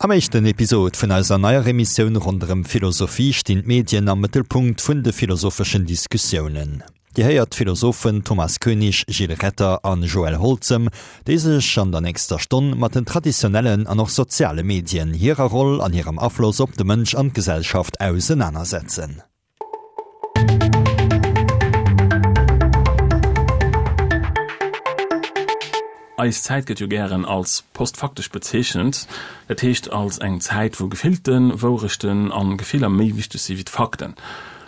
Am éischten Episod vun eiser neier Emissioun ronderëm Philosophie stinn d'Medien am Mëttelpunkt vun de philosopheschen Diskussiounen. Dir héiert d'Philosophen Thomas Koenig, Gilles Retter an Joël Holzem, déi sech an der nächster Stonn mat den traditionellen an och soziale Medien, hirer Roll an hirem Afloss op de Mënsch an d'Gesellschaft ausenanersetzen. Eis Zäit gëtt jo gären als postfaktesch bezeechent, dat heescht als eng Zäit, wou gefillten Wourechten an Gefiller méi wichteg si wéi d'Fakten.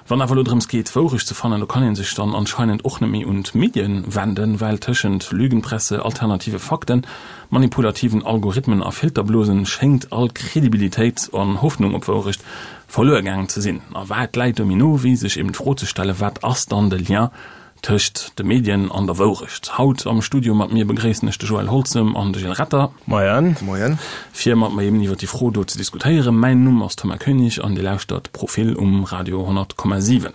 Wann awer elo drëms geet, d'Wourecht ze fannen, do kann ee sech dann anscheinend och net méi un d'Medien wenden, well tëschent Lügenpresse, alternative Fakten, manipulativen Algorithmen a Filterblosen schéngt all Kredibilitéit an Hoffnung op Wourecht verluer gaangen ze sinn. A wat läit do méi no, wéi sech eben d'Fro ze stellen, wat ass dann de Lien tëscht de Medien an der Wourecht? Haut am Studio mat mir begréissen ech de Joël Holzem an de Gilles Retter. Moien. Moien. Fir mat mer eben iwwer déi Fro do ze diskutéieren. Mäin Numm ass Thomas Koenig an Dir lauschtert Profil um Radio 100,7.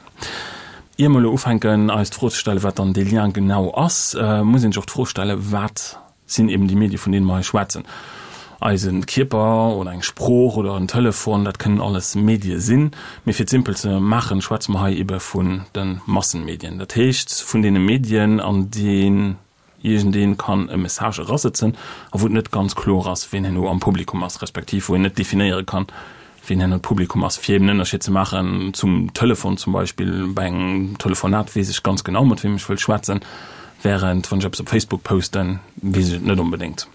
Ier mer elo ufänken eis d'Fro ze stellen, wat dann dee Lien genau ass, muss een sech och d'Fro stellen, wat sinn eben déi Medie vun deene mer hei schwätzen. Eise Kierper oder eng Sprooch oder en Telefon, dat kënnen alles Medie sinn. Mee fir et simpel ze maachen, schwätze mer hei ebe vun de Massenmedien. Dat heescht vun deene Medien, an déi iergendee kann e Message erasëtzen a wou et net ganz kloer ass, ween herno am Publikum ass, respektiv wou een net definéiere kann, ween herno d'Publikum ass, fir eben en Ënnerscheed ze maachen zum Telefon zum Beispill. Bei engem Telefonat weess ech ganz genau, mat weem ech wëll schwätzen, während wann ech eppes op Facebook posten, weess ech et net onbedéngt.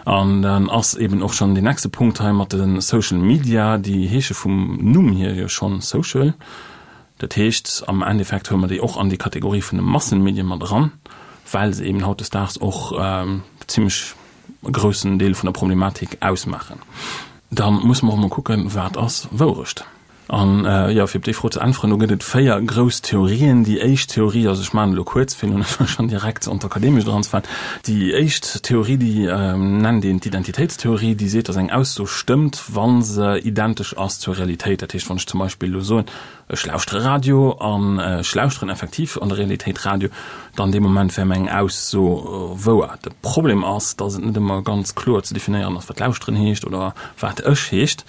An dann ass eben och schonn deen nächste Punkt hei mat de Social Media, déi heesche vum Numm hier jo schonn Social. Dat heescht, am Endeffekt huele mer déi och an déi Kategorie vun de Massenmedien mat eran, well se eben hautdesdaags och zimlech e groussen Deel vun der Problematik ausmaachen. Da musse mer och emol kucken, Wat ass Wourecht? An, jo, fir op déi Fro ze äntweren, do gëtt et 4 grouss Theorien. Déi éischt Theorie, also ech maachen elo kuerz, fir elo net schonn direkt an d'Akademescht eranzefalen, déi éischt Theorie, déi nennt een d'Identitéitstheorie, déi seet, datt eng Ausso stëmmt, wa se identesch ass zur Realitéit. Dat heescht, wann ech zum Beispill elo soen, Ech lauschtere Radio an ech lauschteren effektiv an der Realitéit Radio, dann dee Moment wär meng Ausso wouer. De Problem ass, datt et net ëmmer ganz kloer ze definéieren ass, wat lauschteren heescht oder wat ech heescht.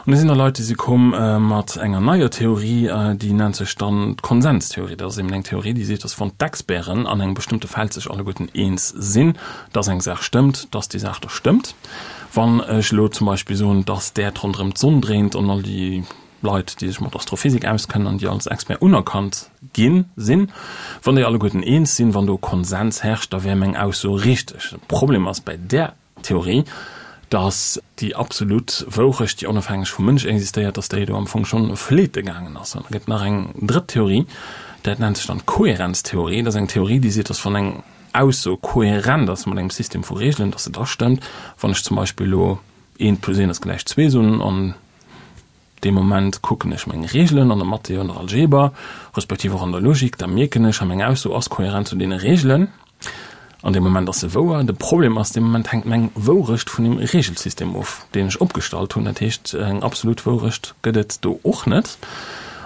An da sinn da Leit, déi si komm mat enger neier Theorie, déi nennt sech dann d'Konsenstheorie. Dat ass eben eng Theorie, déi seet, datt wann d'Experten an engem bestëmmte Feld sech alleguerten eens sinn, datt eng Saach stëmmt, datt déi Saach da stëmmt. Wann ech elo zum Beispill soen, datt d'Äerd ronderëm d'Sonn dréint an all déi Leit, déi sech mat Astrophysik auskennen an déi als Expert unerkannt gi sinn, wann déi alleguerten eens sinn, wann do Konsens herrscht, da wär meng Ausso richteg. De Problem ass bäi där Theorie, datt déi absolut Wourecht, déi onofhängeg vum Mënsch existéiert, datt déi do am Fong schonn fleete gaangen ass. An da gëtt nach eng drëtt Theorie, dat nennt sech dann d'Kohärenztheorie. Dat ass eng Theorie, déi seet, datt wann eng Ausso kohärent ass mat engem System vu Reegelen, datt se da stëmmt. Wann ech zum Beispill elo eent plus eent ass gläich zwee soen an Dee Moment kucken ech meng Reegelen an der Mathé, an der Algeber, respektiv och an der Logik, da mierken ech, ha meng Ausso ass kohärent zu deene Reegelen. An deem Moment ass se wouer. De Problem ass, dee Moment hänkt meng Wourecht vun dem Reegelsystem of, deen ech opgestallt hunn. Dat heescht, eng absolut Wourecht gëtt et do och net.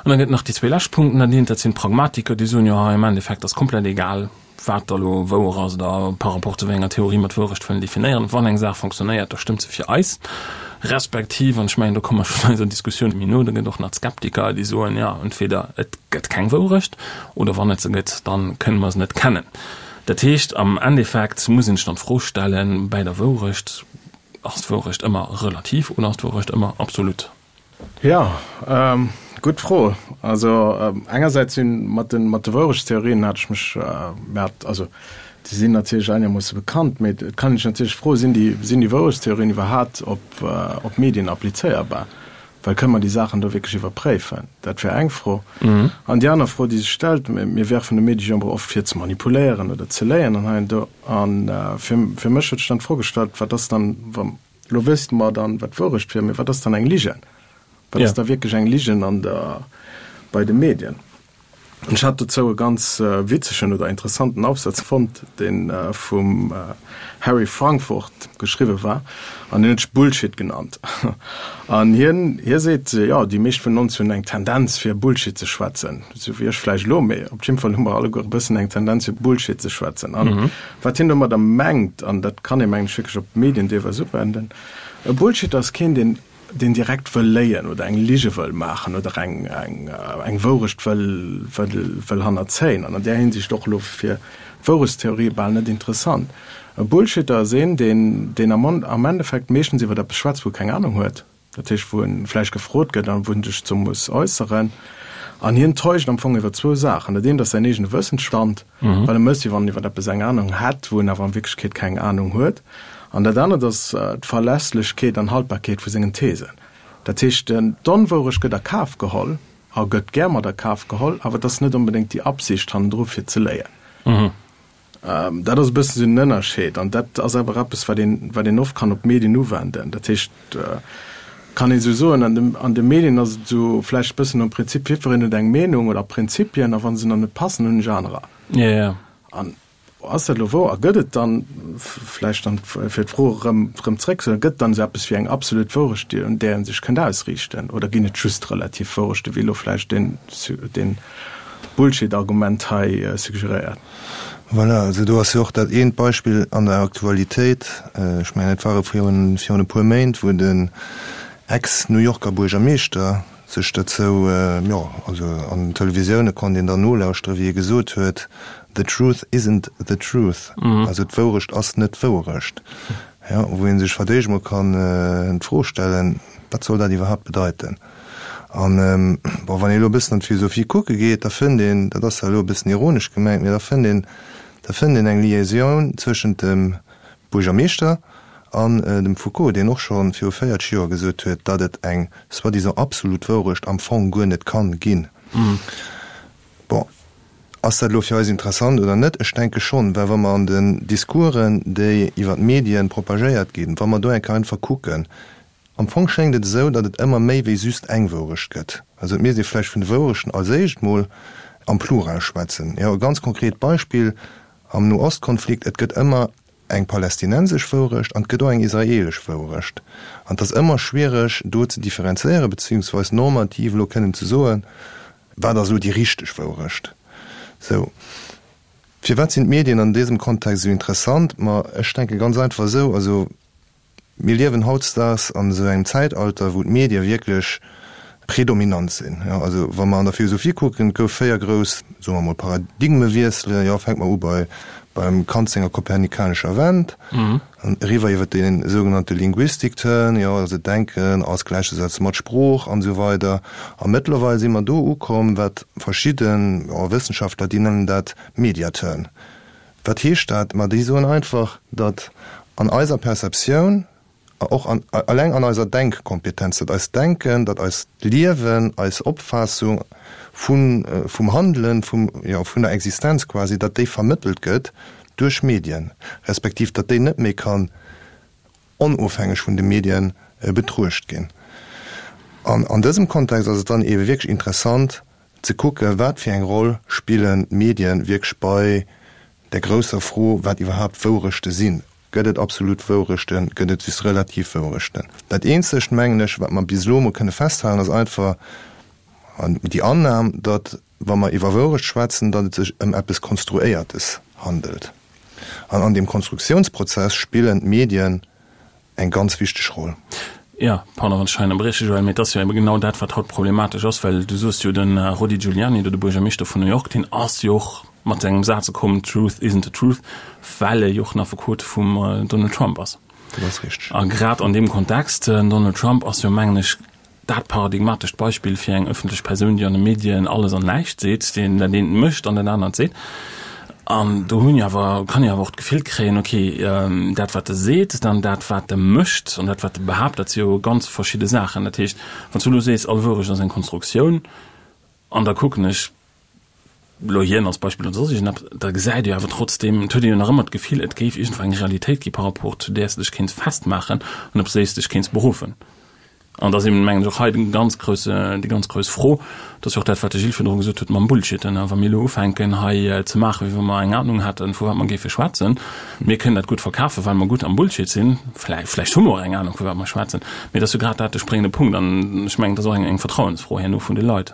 An da gëtt et nach déi zwee lescht Punkten. Dat eent, dat sinn d'Pragmatiker, déi soen, jo, hei am Endeffekt ass komplett egal, wat da lo wouer ass oder par rapport zu wéi enger Theorie mer d'Wourecht wëllen definéieren. Wann eng Saach fonctionnéiert, da stëmmt se fir eis. Respektiv, an ech mengen, do komme mer schonn eiser Diskussioun méi no, da gëtt och nach d'Skeptiker, déi soen, jo, entweder et gëtt keng Wourecht oder wann et se gëtt, da kënne mer se net kennen. Dat heescht, am Endeffekt muss een sech dann d'Fro stellen, bäi der Wourecht, Ass d'Wourecht ëmmer relativ oder ass d'Wourecht ëmmer absolut? Jo, gutt Fro. Also engersäits si mat de mat de Wourechtstheorien hat ech mech, mir hat, also déi sinn natierlech einermoosse bekannt, mee et kann een sech natierlech froen, sinn déi sinn déi Wourechtstheorien iwwerhaapt op op Medien applizéierbar? Well kënne mer déi Saachen do wierklech iwwerpréifen? Dat wär eng Fro. An déi aner Fro, déi sech stellt, mir werfen de Medie jo ëmmer oft vir ze manipuléieren oder ze léien an hei an do. A fir fir mech huet sech dann d'Fro gestallt, wat ass dann, wa Lo wësst mer dann, wat d'Wourecht wier, mee wat ass dann eng Ligen? Wat ass da wierklech eng Ligen an der, bei de Medien? An ech hat dozou e ganz witzegen oder interessanten Aufsatz fonnt, dee vum Harry Frankfurt geschriwwe war, an deen huet sech Bullshit genannt. An hien, hie seet, jo, déi meescht vun ons hunn eng Tendenz fir Bullshit ze schwätzen, esou wéi ech vläicht elo, mee op jidde Fall hu mer alleguer e bëssen eng Tendenz fir Bullshit ze schwätzen. An wat hien domadder mengt, an dat kann ee mengen ech wierklech op d'Medien deelweis uwenden. E Bullshitter ass keen, deen, deen direkt wëll léien oder eng Lige wëll maachen oder eng, eng, eng Wourecht wëll, wëll, wëll hannerzéien. An an där Hinsicht och elo fir d'Wourechtstheorie bal net interessant. E Bullshitter ass een, deen, deen am, am Endeffekt meeschtens iwwer eppes schwätzt, wou e keng Anung huet. Dat heescht, wou e vläicht gefrot gëtt an wou en sech dozou muss äusseren. An hien täuscht am Fong iwwer zwou Saachen. Dat eent ass säin eegene Wëssensstand, well e mécht, wéi wann en iwwer eppes eng Anung hätt, wou en awer an Wierklechkeet keng Anung huet. An dat anert ass d'Verlässlechkeet an Haltbarkeet vu sengen Thesen. Dat heescht, d'Onwourecht gëtt a Kaf geholl a gëtt gär mat a Kaf geholl, awer et ass net onbedéngt déi Absicht hannendru fir ze léien. Dat ass e bëssen esou den Ënnerscheed an dat ass awer eppes, wat een, wat een oft kann op d'Medien uwenden. Dat heescht, kann een esou soen, an de, an de Medien ass et esou vläicht e bëssen nom Prinzip, jiddwereen huet eng Meenung oder Prinzipien a wa se nach net passen, hunn ech anerer. Jo, jo. An ass dat elo wouer? A gëtt et dann, vläicht dann fir d'Fro erëm, erëm zréckzehuelen, gëtt et dann esou eppes wéi eng absolut Wourecht, déi, un där ee sech kënnt ausriichten? Oder ginn et just relativ Wourechten, wéi elo vläicht deen, deen Bullshit-Argument hei suggeréiert? Voilà, also do ass jo och dat eent Beispill an der Aktualitéit, ech mengen et ware virun virun e puer Méint, wou den Ex-New Yorker Buergermeeschter sech dozou, jo, also an den Televisioune konnt een dann nolauschteren, wéi e gesot huet, The truth isn't the truth, also d'Wourecht ass net d'Wouerecht. Jo, wou ee sech fir d'éischt emol kann d'Fro stellen, wat soll dat iwwerhaapt bedeiten? An, bon, wann ee elo e bëssen an d'Philosophie kucke geet, da fënnt een, dat ass zwar elo e bëssen ironesch gemengt, mee da fënnt een, da fënnt een eng Liaisoun zwëschent dem Buergermeeschter an dem Foucault, deen och scho viru 40 Joer gesot huet, datt et eng soi-disant absolut Wourecht am Fong guer net kann ginn. Bon, ass dat elo fir eis interessant oder net? Ech denke schonn, well wa mer an den Discoursen, déi iwwer d'Medien propagéiert ginn, wa mer do eng Kéier einfach kucken, Am Fong schéngt et esou, datt et ëmmer méi wéi just eng Wourecht gëtt. Also et misst ee vläicht vun de Wourechten als éischt mol am Plural schwätzen. Jo, e ganz konkret Beispill am No-Ost-Konflikt, Et gëtt ëmmer eng palästinensesch Wourecht an et gëtt och eng israelesch Wourecht. An et ass ëmmer schwiereg do ze differenzéieren, beziehungsweis normativ elo kënnen ze soen, wat ass elo déi richteg Wourecht. Sou. Firwat sinn d'Medien an dësem Kontext esou interessant? Ma ech denke ganz einfach esou, also Mir liewen hautdesdaags an esou engem Zäitalter, wou d'Medie wierklech predominant sinn. Jo, also wa mer an der Philosophie kucken, et gouf 4 grouss, soe mer emol, Paradigmewiesselen. Jo, fänke mer u bei beim Kant senger kopernikanescher Wend, an eriwwer iwwer dee sougenannte Linguistik-Turn, jo, also Denken als gläichzesetze mat Sprooch an esou weider. A mëttlerweil si mer do ukomm, wat verschidden, jo, Wëssenschaftler, déi nennen dat Media-Turn. Wat heescht dat? Ma déi soen einfach, datt an eiser Perceptioun, och an, eleng an eiser Denkkompetenz, datt eist Denken, datt eist Liewen, eis Opfaassung vu vum Handelen, vum, jo, vun der Existenz quasi, datt déi vermëttelt gëtt duerch Medien, respektiv datt déi net méi kann onofhängeg vun de Medien betruecht ginn. An an dësem Kontext ass et dann eebe wierklech interessant, ze kucken, wat fir eng Roll spillen d'Medien wierklech bei der grousser Fro, wat iwwerhaapt Wourechte sinn. Gëtt et absolut Wourechten? Gëtt et just relativ Wourechten? Dat eenzegt, mengen ech, wat mer bis elo emol kënne festhalen, ass einfach déi Annam, datt, wa mer iwwer Wourecht schwätzen, datt et sech ëm eppes Konstruéiertes handelt. An an deem Konstruktiounsprozess spillen d'Medien eng ganz wichteg Roll. Jo, pardon, wann ech hei ënnerbrieche, Joël, mee et ass jo ebe genau dat, wat haut problematesch ass, well du soos jo, de Rudy Giuliani, do de Buergermeeschter vun New York, deen ass jo och mat engem Saz komm, Truth isn't the truth, well e jo och en Affekot vum Donald Trump ass. Dat ass richteg. A grad an deem Kontext, den Donald Trump ass jo, mengen ech, dat paradigmatescht Beispill fir eng ëffentlech Persoun, déi an de Medien alles an näischt seet, deen dat eent mécht an dat anert seet. An do hunn jo awer, kann ee awer och d'Gefill kréien, okay, dat wat e seet, dann dat wat e mécht an dat wat e behaapt, dat si jo ganz verschidde Saachen. Dat heescht, wann s du elo sees, all Wourecht ass eng Konstruktioun, an da kucken ech elo hien als Beispill oder soss iergendeppes, da gesäit ee jo awer trotzdeem, et huet ee jo nach ëmmer d'Gefill, et géif iergendwou eng Realitéit gi par rapport zu där s de dech kéints festmaachen an op déi s de dech kéints beruffen. An da ass eben, mengen ech, och hei de ganz grousse, déi ganz grouss Fro, dat ass jo och dat, wat de Gilles virdru gesot huet mam Bullshitten, wa mir elo ufänken hei ze maachen, wéi wa mer eng Ahnung hätten, vu wat mer géife schwätzen, mir kënnen dat gutt verkafen, well mer gutt am Bullshit sinn, vläicht, vläicht hu mer och eng Ahnung, vu wat mer schwätzen, mee et ass jo grad dat de spréngende Punkt an ech mengen, et ass och eng, eng Vertrauensfro herno vun de Leit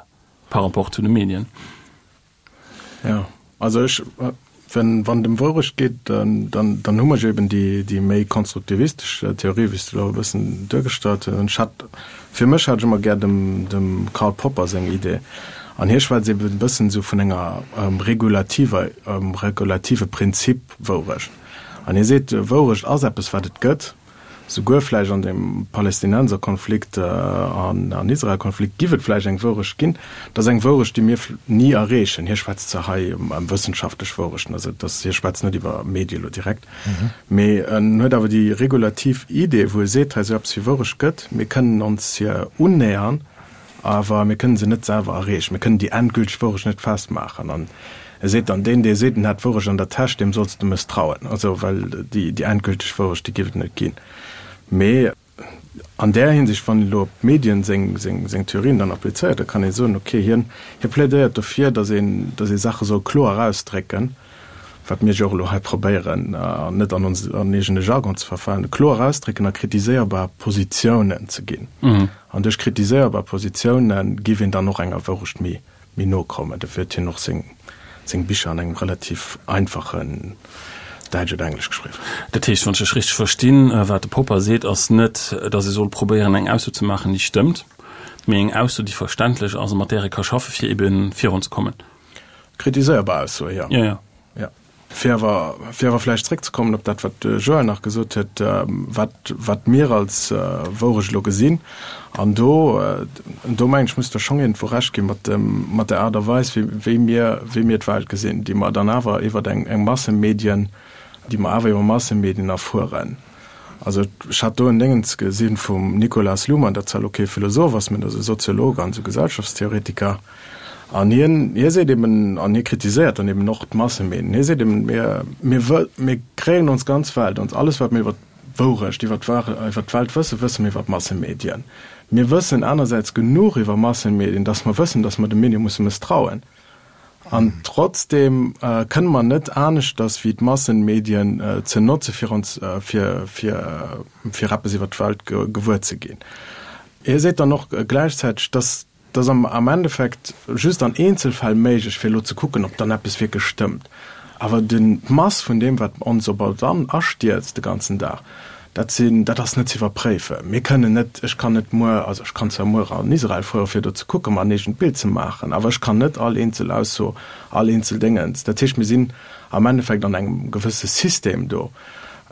par rapport zu de Medien. Jo, also ech. Wenn, wann et ëm Wourecht geet, dann, dann hu mer jo eben déi, déi méi konstruktivistesch Theorie, wéi s de elo e bëssen duergestallt hues. An ech hat, fir mech hat ech ëmmer gär dem, dem Karl Popper seng Idee. An hie schwätzt eben e bëssen esou vun enger regulativer, regulative Prinzip Wourecht. An hie seet, Wourecht ass eppes, wat et gëtt. Souguer vläicht an dem Palästinenserkonflikt an Israelkonflikt giff et vläicht eng Wourecht ginn. Dat ass eng Wourecht, déi mir ni erreechen. Hie schwätzt zwar hei ëm wëssenschaftlech Wourechten, also dass hie schwätzt net iwwer Medie lo direkt, mee en huet awer déi regulativ Idee, wou e seet, hei esou eppes wéi Wourecht gëtt, mir kënnen ons hir unnähern, Awer mir kënnen se net selwer erreechen. Mir kënnen déi endgülteg Wourecht net festmaachen. An e seet dann, Deen, dee seet, en hätt d'Wourecht an der Täsch, deem solls de mësstrauen. Also, well déi endgülteg Wourecht, déi géif et net ginn. Mee an där Hinsicht, wann een elo op d'Medien seng, seng, seng Theorien dann applizéiert, da kann ee soen, okay, hien, hie plädéiert dofir, datt een, datt ee Saache soll kloer erausdrécken, wat mir jo och elo hei probéieren, an net an ons an eegene Jargon ze verfalen, kloer ausdrécken a kritiséierbar Positiounen ze ginn. An duerch kritiséierbar Positiounen géif een dann och enger Wourecht méi méi no kommen. Dofir huet hien och seng seng Bicher an engem relativ einfachen Däitsch oder Englesch geschriwwen. Dat heescht, wann ech dech richteg verstinn, wat de Popper seet, ass net, datt ee soll probéieren eng Ausso ze maachen, déi stëmmt, mee eng Ausso, déi verständlech ass a mat där ee ka schaffen, fir ebe virunzekommen. Kritiséierbar Aussoe, jo. Jo, jo. Jo. Fir awer, fir awer vläicht zréckzekommen op dat, wat de Joël nach gesot huet, wat, wat mir als Wourecht elo gesinn, an do, do mengen ech, muss der schonn iergendwou Recht gi mat dem, mat der Aart a Weis, wéi, wéi mir, wéi mir d'Welt gesinn, déi mer dann awer iwwer eng, eng Massemedien, déi mer awer iwwer Massemedien erfueren. Also ech hat do en Déngens gesi vum Nicolas Luhmann, dat zwar elo kee Philosoph ass, mä dat ass e Soziolog an esou Gesellschaftstheoretiker, An hien, hie seet eben, an hie kritiséiert dann eben och d'Massemedien, hie seet eben, mir, mir wë, mir kréien ons ganz Welt, ons alles wat mir iwwer d'Wourecht, iwwer d'War, iwwer d'Welt wëssen, wësse mir iwwer d'Massemedien. Mir wëssen anersäits genuch iwwer Massemedien, datt mer wëssen, datt mer de Medie musse mësstrauen. An trotzdem kënne mer net aneschters wéi d'Massenmedien ze notze fir ons, fir, fir, fir eppes iwwer d'Welt gewuer ze ginn. Hie seet dann och gläichzäiteg, datt Et ass am Endeffekt just an Eenzelfäll méiglech, fir elo ze kucken, ob dann eppes wierklech stëmmt. Awer d'Mass vun deem, wat ons op alt an astierzt de ganzen Dag, dat sinn, dat ass net ze iwwerpréifen. Mir kënnen net, ech kann net muer, also ech kann zwar muer an Israel fuere fir do ze kucken, mer en eegent Bild ze maachen, awer ech kann net all eenzel Ausso, all eenzel Déngens. Dat heescht, mir sinn am Endeffekt an engem gewësse System do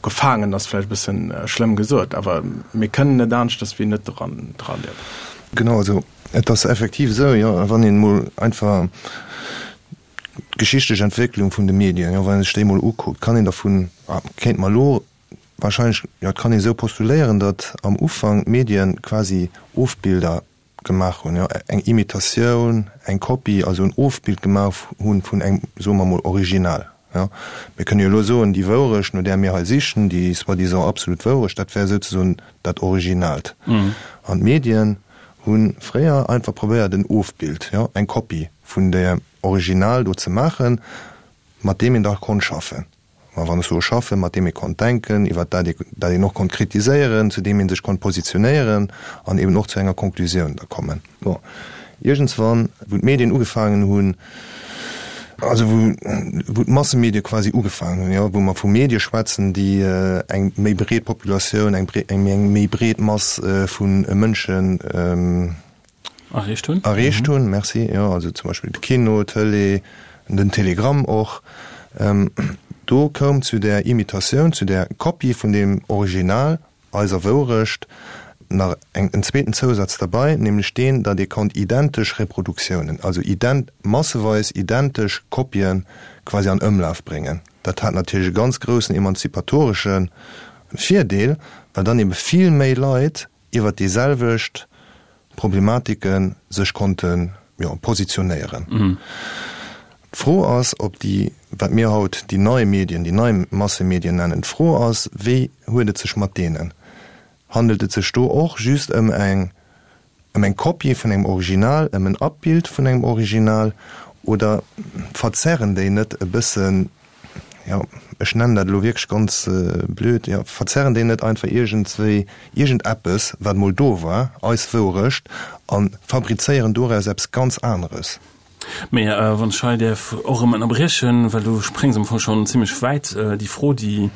gefaangen, ass vläicht e bëssen schlëmm gesot, awer mir kënnen net aneschters wéi net dran dra liewen. Genau, also et ass effektiv esou, jo, wann een emol einfach d'geschichtlech Entwécklung vun de Medien, jo, wann ee sech déi emol ukuckt, kann een dervun, kéint mer elo wahrscheinlech, jo, et kann een esou postuléieren, datt am Ufank d'Medien quasi Ofbilder gemaach hunn, jo, eng Imitatioun, eng Kopie, also en Ofbild gemaach hunn vun engem, soe mer emol, Original. Jo. Mir kënne jo elo soen, déi Wourecht, no där mir hei sichen, déi soi-disant absolut Wourecht, dat wär souzesoen dat Originaalt. An d'Medien hu fréier einfach probéiert, en Ofbild, jo, eng Kopie vun deem Original do ze maachen, mat deem een da konnt schaffen. Ma wann ech soe schaffen, mat deem ee konnt denken, iwwer dat ee, dat een och konnt kritiséieren, zu deem ee sech konnt positionéieren an eben och zu enger Konklusioun da kommen. Bon, iergendswann, wou d'Medien ugefaangen hunn, also wou, wou d'Massemedie quasi ugefaangen hunn, jo, wou mer vu Medie schwätzen, déi eng méi breet Populatioun, eng eng méi breet Mass vu Mënschen, Erreecht hunn. Erreecht hunn, merci. Jo, also zum Beispill de Kino, d'Tëlee, den Telegramm och. Do koum zu där Imitatioun, zu där Kopie vun deem Original, eiser Wourecht, nach eng, en zweeten Zousaz derbei, nämlech deen, datt ee konnt identesch Reproduktiounen, also ident, masseweis identesch Kopien quasi an Ëmlaf bréngen. Dat hat natierlech e ganz groussen emanzipatoresche Virdeel, well dann ebe vill méi Leit iwwert déi selwecht Problematike sech konnte, jo, positionéieren. D'Fro ass, ob déi, wat mir haut déi nei Medien, déi nei Massemedien nennen, d'Fro ass, wéi huet et sech mat deenen? Handelt et sech do och just ëm eng, ëm eng Kopie vun engem Original, ëm en Abbild vun engem Original, oder verzerren déi net e bëssen jo, ech nennen dat elo wierklech ganz blöd, jo, verzerren déi net einfach iergendswéi iergendeppes, wat mol do war, eis Wourecht, a fabrizéieren doraus eppes ganz aneres? Mee wann ech hei däerf och erëm ënnerbriechen, well du spréngs am Fong schonn zimlech wäit, déi Fro, déi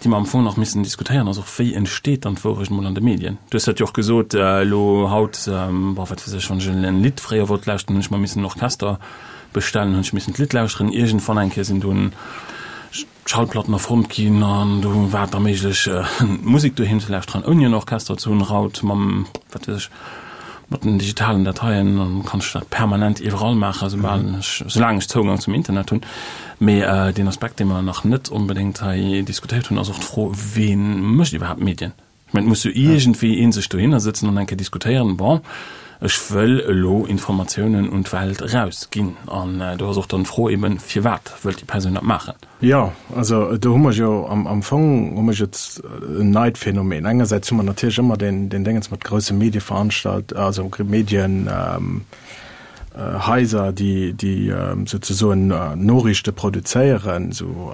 déi mer am Fong nach missen diskutéieren, ass och, Wéi entsteet dann d'Wourecht emol an de Medien? Du hues dat jo och gesot, elo haut, bon, wat weess ech, wann ech en Lidd fréier wollt lauschteren, hunn ech mer missen en Orchester bestellen, hunn ech missen d'Lidd lauschteren. Iergendwann eng Kéier sinn dunn d'Schallplatten erfonnt ginn an do war et da méiglech, Musek doheem ze lauschteren, ouni en Orchester ze hunn. Haut mam, wat weess ech, mat den digitalen Dateien kann ech dat permanent iwwerall maachen, soubal ech, soulaang ech Zougang zum Internet hunn. Mee deen Aspekt, dee mer nach net onbedéngt hei diskutéiert hunn, ass och d'Fro, Wee mécht iwwerhaapt Medien? Ech mengen, et muss jo iergendwéi ee sech dohinner sëtzen an eng Kéier diskutéieren, Bon, ech wëll elo Informatiounen un d'Welt erausginn. An do ass och dann d'Fro eben, Firwat wëllt déi Persoun dat maachen? Jo, also do hu mer jo am Fong hu mer jo en neit Phänomen. Engersäits hu mer natierlech ëmmer deen Déngens mat grousse Medieveranstalt-, also Medienhaiser, déi souzesoen Noriichte produzéieren, esou.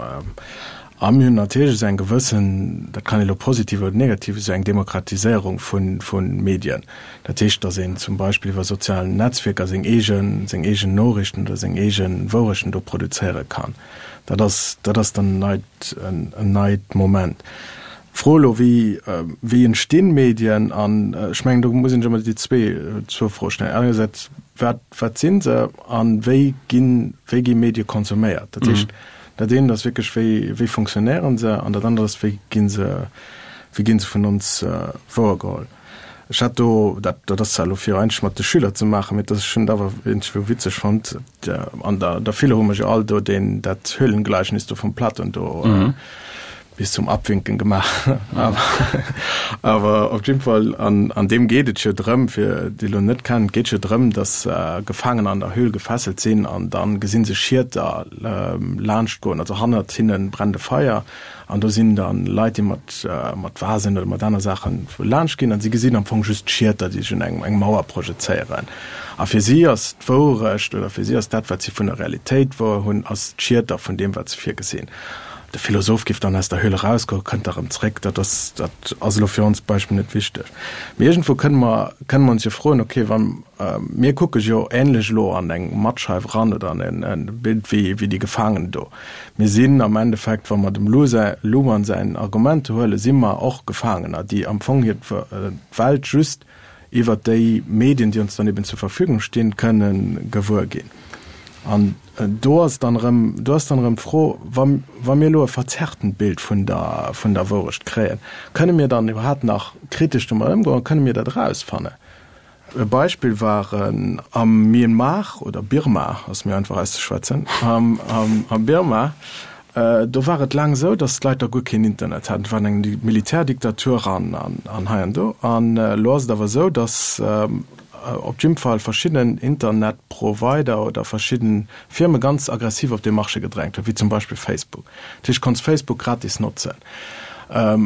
A mir hunn natierlech esou eng gewëssen, dat kann ee elo positiv oder negativ, esou eng Demokratiséierung vu Medien. Dat heescht, datt een zum Beispill iwwer sozial Netzwierker seng eegen, seng eegen Noriichten oder seng eege Wourechten do produzéiere kann. Dat ass, dat ass dann en neit, en neit Moment. D'Fro elo, wéi, wéi entstinn Medien? An ech mengen, do muss een sech ëmmer déi zwee, zwou Froe stellen. Engersäits, wat, wat si se a wéi ginn, wéi gi Medie konsuméiert? Dat heescht, dat eent ass wierklech, wéi, wéi funktionéiere se? An dat anert ass, wéi gi se, wéi gi se vun ons wouergeholl? Ech hat do, dat, dat ass zwar elo fir eigentlech mat de Schüler ze maachen, mee dat ech hunn et awer iergendwou witzeg fonnt, an der, der Philo hu mer jo all do deen, dat Höhlengleichnis do vum Platon do bis zum Abwinken gemaach. Awer, awer op jidde Fall, an, an deem geet et jo drëm, fir déi elo net kennen, et geet jo drëm, datt Gefaangener an der Höhl gefesselt sinn an da gesi se Schieter laanschtgoen, also hannert hinne brennt e Feier An do sinn dann Leit, déi mat, mat Vasen oder mat aner Saachen laanscht ginn an si gesinn am Fong just d'Schieter, déi sech un eng, eng Mauer projezéieren. A fir si ass d'Wourecht oder fir si ass dat, wat si vun der Realitéit wouer hunn, ass d'Schieter vun deem, wat se virgesinn. De Philosoph giff dann aus der Höhle erausgoen, kënnt da rëm zréck. Dat ass, dat ass elo fir ons Beispill net wichteg. Mee iergendwou kënne mer, kënne mer ons jo froen, okay, wa, mir kucke jo ähnlech elo an eng Mattscheif eran oder an en, en Bild wéi, wéi déi Gefaangen do. Mir sinn am Endeffekt, wa mer dem Luhmann säin Argument huelen, si mer och Gefaangener, déi am Fong hir d'Welt just iwwert déi Medien, déi ons dann eben zur Verfügung stinn, kënne gewuer ginn. An do ass dann erëm, do ass dann erëm d'Fro, wa, wa mir elo e verzerrtent Bild vun der, vun der Wourecht kréien, kënne mir dann iwwerhaapt nach kritesch domat ëmgoen, kënne mir dat erausfannen? E Beispill war am Myanmar, oder Birma, ass méi einfach auszeschwätzen, am Birma, do war et laang esou, datt d'Leit da guer keen Internet haten. Et war eng Militärdiktatur an hei an do. An elo ass et awer esou, datt op jidde Fall verschidden Internetprovider oder verschidde Firme ganz aggressiv op dee Marché gedrängt hunn, wéi zum Beispill Facebook. Dat heescht, du konns Facebook gratis notzen.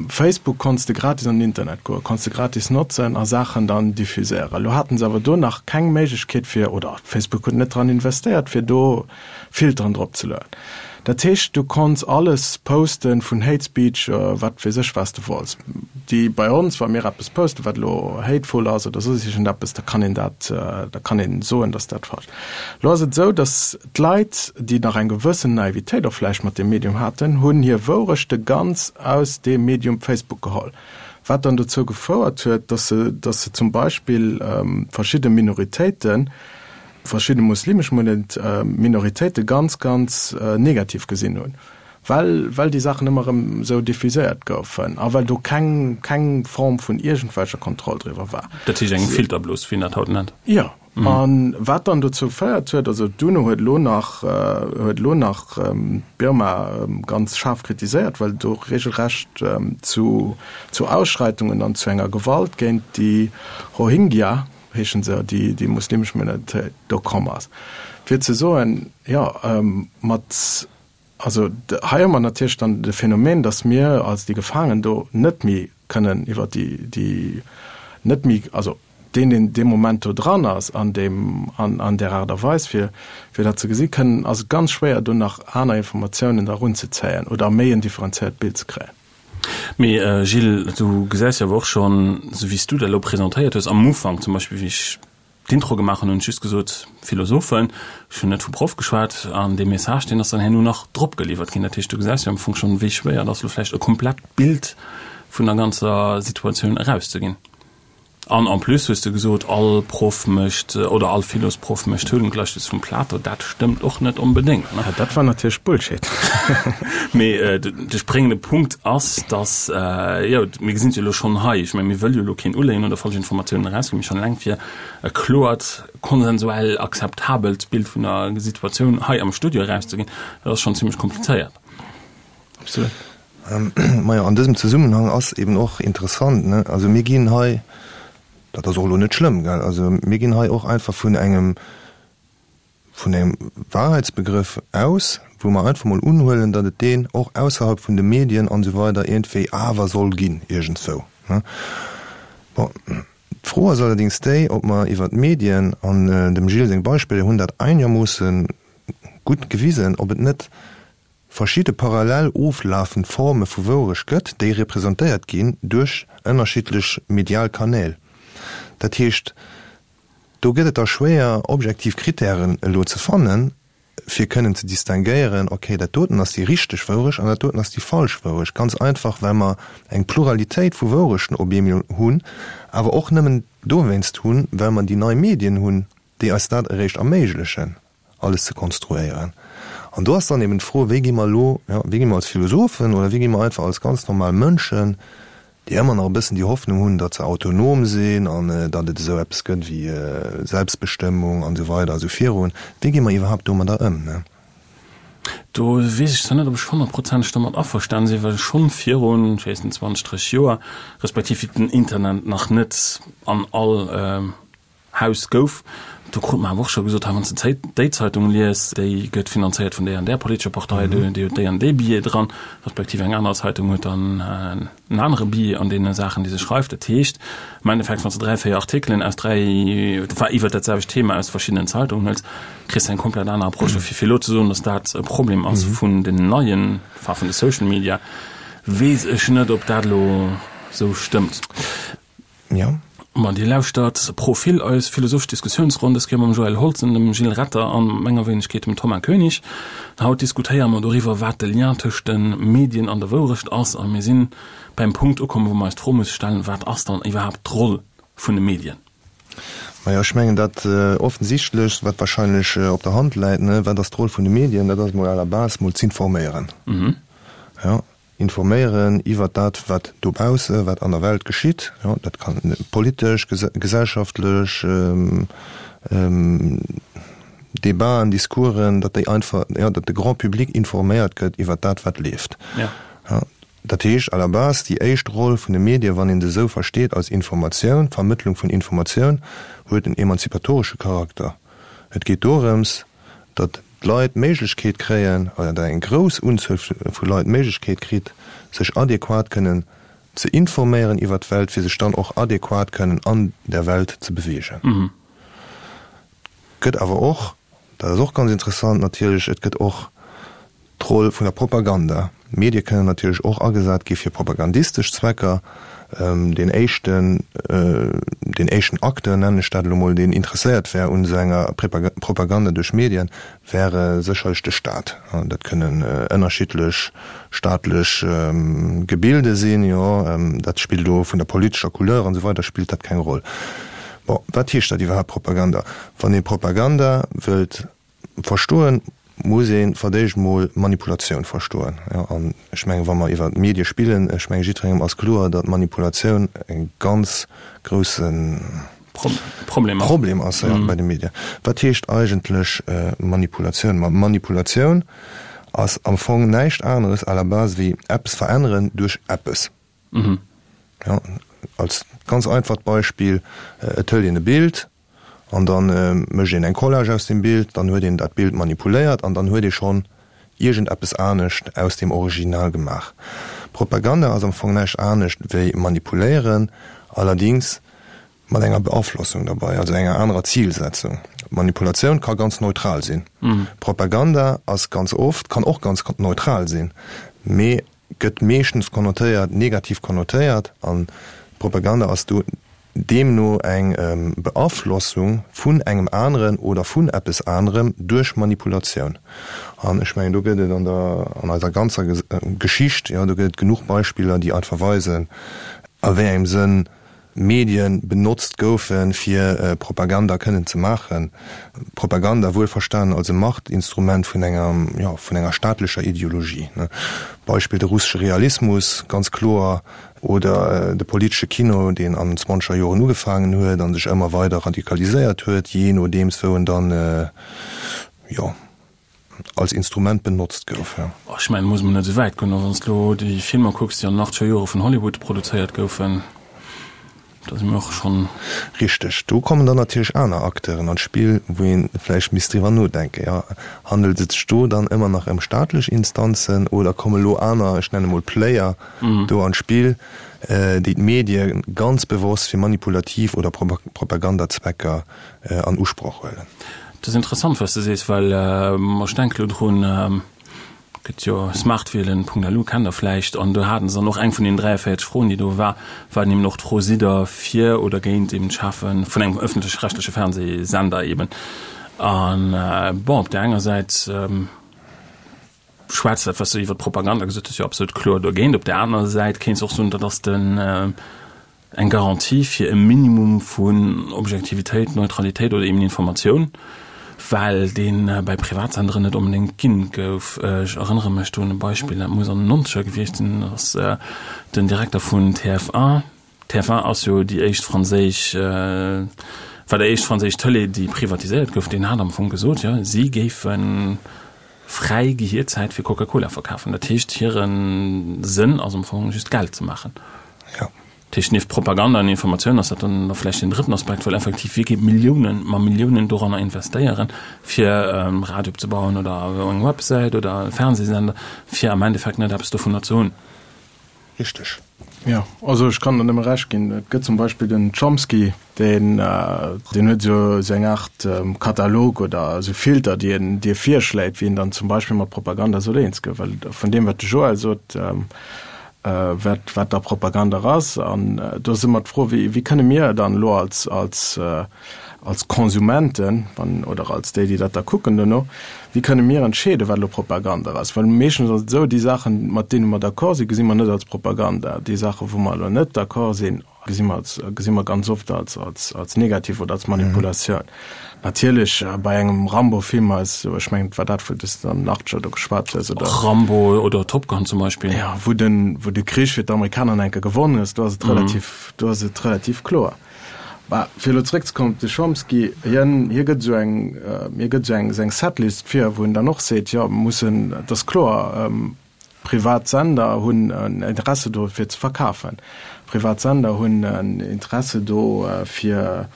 Facebook konns de gratis an den Internet goen, konns de gratis notzen a Saachen dann diffuséieren. Elo haten se awer do nach keng Méiglechkeet fir, oder Facebook huet net dran investéiert, fir do Filteren drop ze lueden. Dat heescht, du konns alles posten, vun Hate Speech, wat weess ech, wat s de wollts. Déi bei ons, wa mir eppes posten, wat elo hateful ass oder soss iergendeppes, da kann een dat, da kann een soen, dass dat falsch. Elo ass et esou, dass D'Leit, déi nach eng gewëssen Naivitéit och vläicht mat deem Medium haten, hunn hir Wourechte ganz aus deem Medium Facebook geholl, wat dann dozou gefouert huet, dass se, dass se zum Beispill verschidde Minoritéiten, verschidde muslimesch Minoritéite ganz, ganz negativ gesinn hunn, well, well déi Saachen ëmmer erëm esou diffuséiert goufen a well do keng, keng Form vun iergendwelcher Kontroll driwwer war. Dat heescht eng Filterblos, wéi een dat haut nennt. Jo. A wat dann dozou féiert huet, also d'UNO huet elo nach, huet elo nach Birma ganz schaarf kritiséiert, well do regelrecht zu, zu Ausschreitungen an zu enger Gewalt géint déi Rohingya, heeschen se, déi, déi muslimesch Minoritéit do komm ass. Fir ze soen, jo, mat, also hei hu mer natierlech dann de Phänomen, datt mir als déi Gefaangen do net méi kënnen iwwer déi, déi net méi, also deen, deen dee Moment do dran ass an deem, an, an där Aart a Weis, fir, fir dat ze gesinn, kënnen, ass et ganz schwéier, do nach aner Informatiounen da erunzezéien oder méi en differenzéiert Bild ze kréien. Mee Gilles, du gesäis jo awer och schonn, esou wéi s du dat elo presentéiert hues am Ufank zum Beispill, wéi ech. d'Intro gemaach hunn, hunn ech just gesot, Philosophen. Ech hunn net vu Proff geschwat. An dee Message, deen ass dann herno nach drop geliwwert ginn. Dat heescht, du gesäis jo am Fong schonn, wéi schwéier et ass, elo vläicht e komplett Bild vun der ganzer Situatioun erauszeginn. An en plus hues de gesot, all Proff mécht oder all Philosproff mécht Höhlengleichnis vum Plato. Dat stëmmt och net onbedéngt, ne? Dat war natierlech Bullshit. Mee de spréngende Punkt ass, dass, jo, mir gesinn et jo elo schonn hei, ech mengen, mir wëlle jo elo keen uléien oder falsch Informatiounen erausginn, mee schonn eleng fir e kloert, konsensuell akzeptabelt Bild vun der Situatioun hei am Studio erauszeginn, dat ass schonn zimmlech komplizéiert. Absolut. Majo, an dësem Zesummenhang ass eben och interessant, ne, also mir ginn hei, dat ass och elo net schlëmm, gell, also mir ginn hei och einfach vun engem, vun engem Wahrheitsbegrëff aus, wou mer einfach mol unhuelen, datt et deen och ausserhalb vun de Medien an esou weider iergendwéi awer soll ginn, iergendswou, ne. Bon, d'Fro ass allerdings déi, ob mer iwwert d'Medien, an dem Gilles seng Beispiller hunn dat einermoosse gutt gewisen, ob et net verschidde parallel oflafend Forme vu Wourecht gëtt, déi representéiert ginn duerch ënnerschiddlech medial Kanäl. Dat heescht, do gëtt et da schwéier, objektiv Krittären elo ze fannen, fir kënnen ze distinguéieren, okay, dat doten ass déi richteg Wourecht an dat doten ass déi falsch Wourecht. Ganz einfach, well mer eng Pluralitéit vu Wourechten op eemol hunn, awer och nëmmen dowéinst hunn, well mer déi nei Medien hunn, déi eis dat eréischt erméiglechen. alles ze konstruéieren. An do ass dann eben d'Fro, wéi gi mer elo, jo, wéi gi mer als Philosophen oder wéi gi mer einfach als ganz normal Mënschen, déi ëmmer nach e bëssen déi Hoffnung hunn, datt se autonom sinn an datt et esou eppes gëtt wéi Selbstbestëmmung an esou weider a sou virun, wéi gi mer iwwerhaapt domadder ëm, ne? Do weess ech zwar net, ob ech honnertprozenteg domat averstanen sinn, well schonn virun, ech weess net, 20, 30 Joer, respektiv wéi den Internet nach net an all Haus gouf. Do krut mer awer och scho gesot, hei wann s de déi Zeitung liest, déi gëtt finanzéiert vun där an där politescher Partei, déi huet déi an dee Billet dran, respektiv eng aner Zeitung huet dann en anere Billet an deene Saachen, déi se schreift. Dat heescht am Endeffekt, wann s de dräi, véier Artikelen aus dräi, enfin iwwert dat selwecht Thema aus verschiddenen Zeitungen huels, kriss de eng komplett aner Approche. Dofir fir elo ze soen, datt dat e Problem ass vun den neien, enfin vun de Social Media, weess ech net, ob dat elo esou stëmmt. Jo. Ma Dir lauschtert Profil, eis philosophesch Diskussiounsronn, dës Kéier mam Joël Holzen, dem Gilles Retter an menger Wéinegkeet, dem Thomas Koenig. Haut diskutéiere mer doriwwer, wat de Lien tëscht de Medien an der Wourecht ass. A mir sinn beim Punkt ukomm, wou mer eis d'Fro musse stellen, Wat ass dann iwwerhaapt d'Roll vun de Medien? Majo, ech mengen dat Offensichtlechst, wat wahrscheinlech op der Hand läit, ne, wat ass d'Roll vun de Medien, dat ass mol à la base mol z'informéieren. Jo. Informéieren iwwert dat, wat dobausse, wat an der Welt geschitt. Jo, dat kann politesch, gesellschaftlech Debaten, Discoursen, datt déi einfach, jo, datt de Grand public informéiert gëtt iwwert dat, wat leeft. Jo, dat heescht à la base, déi éischt Roll vun de Medien, wann een se esou versteet als Informatioun, Vermëttlung vun Informatioun, huet en emanzipatoresche Charakter. Et geet dorëms, datt d'Leit d'Méiglechkeet kréien, oder datt eng grouss Unzuel vu Leit d'Méiglechkeet kritt, sech adequat kënnen ze informéieren iwwert d'Welt, fir sech dann och adequat kënnen an der Welt ze beweegen. Et gëtt awer och, dat ass och ganz interessant natierlech, et gëtt och D'Roll vun der Propaganda. Medie kënnen natierlech och agesat gi fir propagandistesch Zwecker. Deen éischten, deen éischten Acteur, nennen ech dat elo mol, deen interesséiert wär un esou enger Propaganda duerch Medien, wäre sécherlech de Staat. Dat kënnen ënnerschiddlech staatlech Gebilde sinn, jo, dat spillt elo vun der politescher Couleur an esou weider spillt dat keng Roll. Bon, wat heescht dat iwwerhaapt Propaganda? Wann ee Propaganda wëllt Verstoen muss ee fir d'éischt mol Manipulatioun verstoen. Jo, an ech mengen, wa mer iwwer d'Medie spillen, ech mengen, jiddwerengem ass kloer, datt Manipulatioun e ganz grousse Problem ass bei de Medien. Wat heescht eigentlech Manipulatioun? Ma Manipulatioun ass am Fong näischt aneres à la base wéi eppes veränneren duerch eppes. Jo, als ganz einfacht Beispill, Et hëlt een e Bild, An da mécht een eng Collage aus deem Bild, dann huet een dat Bild manipuléiert an dann huet ee schonn iergendeppes anescht aus deem Original gemaach. Propaganda ass am Fong näischt anescht wéi manipuléieren, allerdings mat enger Beaflossung derbei, also enger anerer Zilsetzung. Manipulatioun ka ganz neutral sinn. Propaganda ass ganz oft, kann och ganz neutral sinn, mee gëtt meeschtens konnotéiert, negativ konnotéiert an Propaganda ass do. Deemno eng Beaflossung vun engem aneren oder vun eppes anerem duerch Manipulatioun. An ech mengen, do gëtt et an der, an eiser ganzer Geschicht, jo, do gëtt et genuch Beispiller, déi einfach weisen, a wéi engem Sënn Medien benotzt goufen, fir Propaganda kënnen ze maachen. Propaganda wuelverstanen als e Machtinstrument vun enger, jo, vun enger staatlecher Ideologie. Beispill de russesche Realismus, ganz kloer, Oder de politesche Kino, deen an den zwanzeger Joren ugefaangen huet a sech ëmmer weider radikaliséiert huet, jee nodeems wou en dann, jo, als Instrument benotzt gouf. Ech mengen, muss mer net esou wäit goen, wann s de elo déi Filmer kucks, déi an den achtzeger Jore vun Hollywood produzéiert goufen. Da si mir och schonn. Richteg. Do kommen dann natierlech aner Acteuren an d'Spill, wou ee vläicht misst driwwer nodenken, jo, handelt et sech do dann ëmmer nach ëm staatlech Instanzen oder komme lo aner, ech nenne mol Player, do an d'Spill, déi d'Medie ganz bewosst fir manipulativ oder Propagandazwecker an Usproch huelen? Dat ass interessant, wat s de sees, well ech denke lo drun, Gëtt jo smartwielen.lu, kennt der vläicht, an do haten se dann och eng vun den 43 Froen, déi do war, war dann eben och d'Fro, Sidd der fir oder géint eben d'Schafe vun engem ëffentlech-rechtleche Fernsehsender eben? An bon, op där enger Säit schwätzt dat, wat s du iwwer d'Propaganda gesot hues, jo absolut kloer dogéint. Op där anerer Säit kéints de och soen, dat ass den, Eng Garantie fir e Minimum vun Objektivitéit, Neutralitéit oder eben Informatioun, well dee bei Privatsenderen net onbedéngt ginn gouf. Ech erënnere mech do un e Beispill, dat muss an den Nonzeger gewiescht sinn, dat ass den Direkter vun TF1, TF1 ass jo déi éischt franséisch, war déi éischt franséisch Tëlee, déi privatiséiert gouf, deen hat am Fong gesot, jo, si géife fräi Gehierzäit fir Coca-Cola verkafen. Dat heescht, hire Sënn ass am Fong just Geld ze maachen. Ja. Dat heescht, nieft Propaganda an Informatioun ass dat dann da vläicht deen drëtten Aspekt, well effektiv wie geet Milliounen, ma Milliounen doranner investéieren, fir e Radio opzebauen oder eng Websäit oder e Fernsehsender, fir am Endeffekt net eppes dovunner ze hunn. Richteg. Jo, also ech kann der nëmme Recht ginn. Et gëtt zum Beispill den Chomsky, deen, deen huet esou esou eng Aart Katalog oder esou Filter, déi en, déi e virschléit, wéi een dann zum Beispill mat Propaganda soll eens ginn. Well vun deem, wat de Joël sot, wat, wat da Propaganda ass. An do ass ëmmer d'Fro, wéi, wéi kënne mir dann elo als, als, als Konsumenten, wann, oder als déi, déi dat da kucken duerno, wéi kënne mir entscheeden, wat elo Propaganda ass? Well meeschtens ass et esou, déi Saachen, mat deene mer d'accord sinn, gesi mer net als Propaganda. Déi Saachen, wou mer elo net d'accord sinn, gesi mer als, gesi mer ganz oft als, als, als negativ oder als Manipulatioun. Natierlech bei engem Rambo-Film ass, ech mengen, et war dat, wou s de an den Achtzeger do geschwat hues, oder? Rambo oder Top Gun zum Beispill. Jo, wou den, wou de Krich fir d'Amerikaner nach eng Kéier gewonnen ass, do ass et relativ, do ass et relativ kloer. Mä fir elo zeréckzekommen op de Chomsky, hien, hie gëtt esou eng, hie gëtt esou eng, esou eng Setlist vir, wou en dann och seet, jo, mir mussen, et ass kloer, Privat Sender hunn en Interesse do fir ze verkafen. Privat Sender hunn en Interesse do fir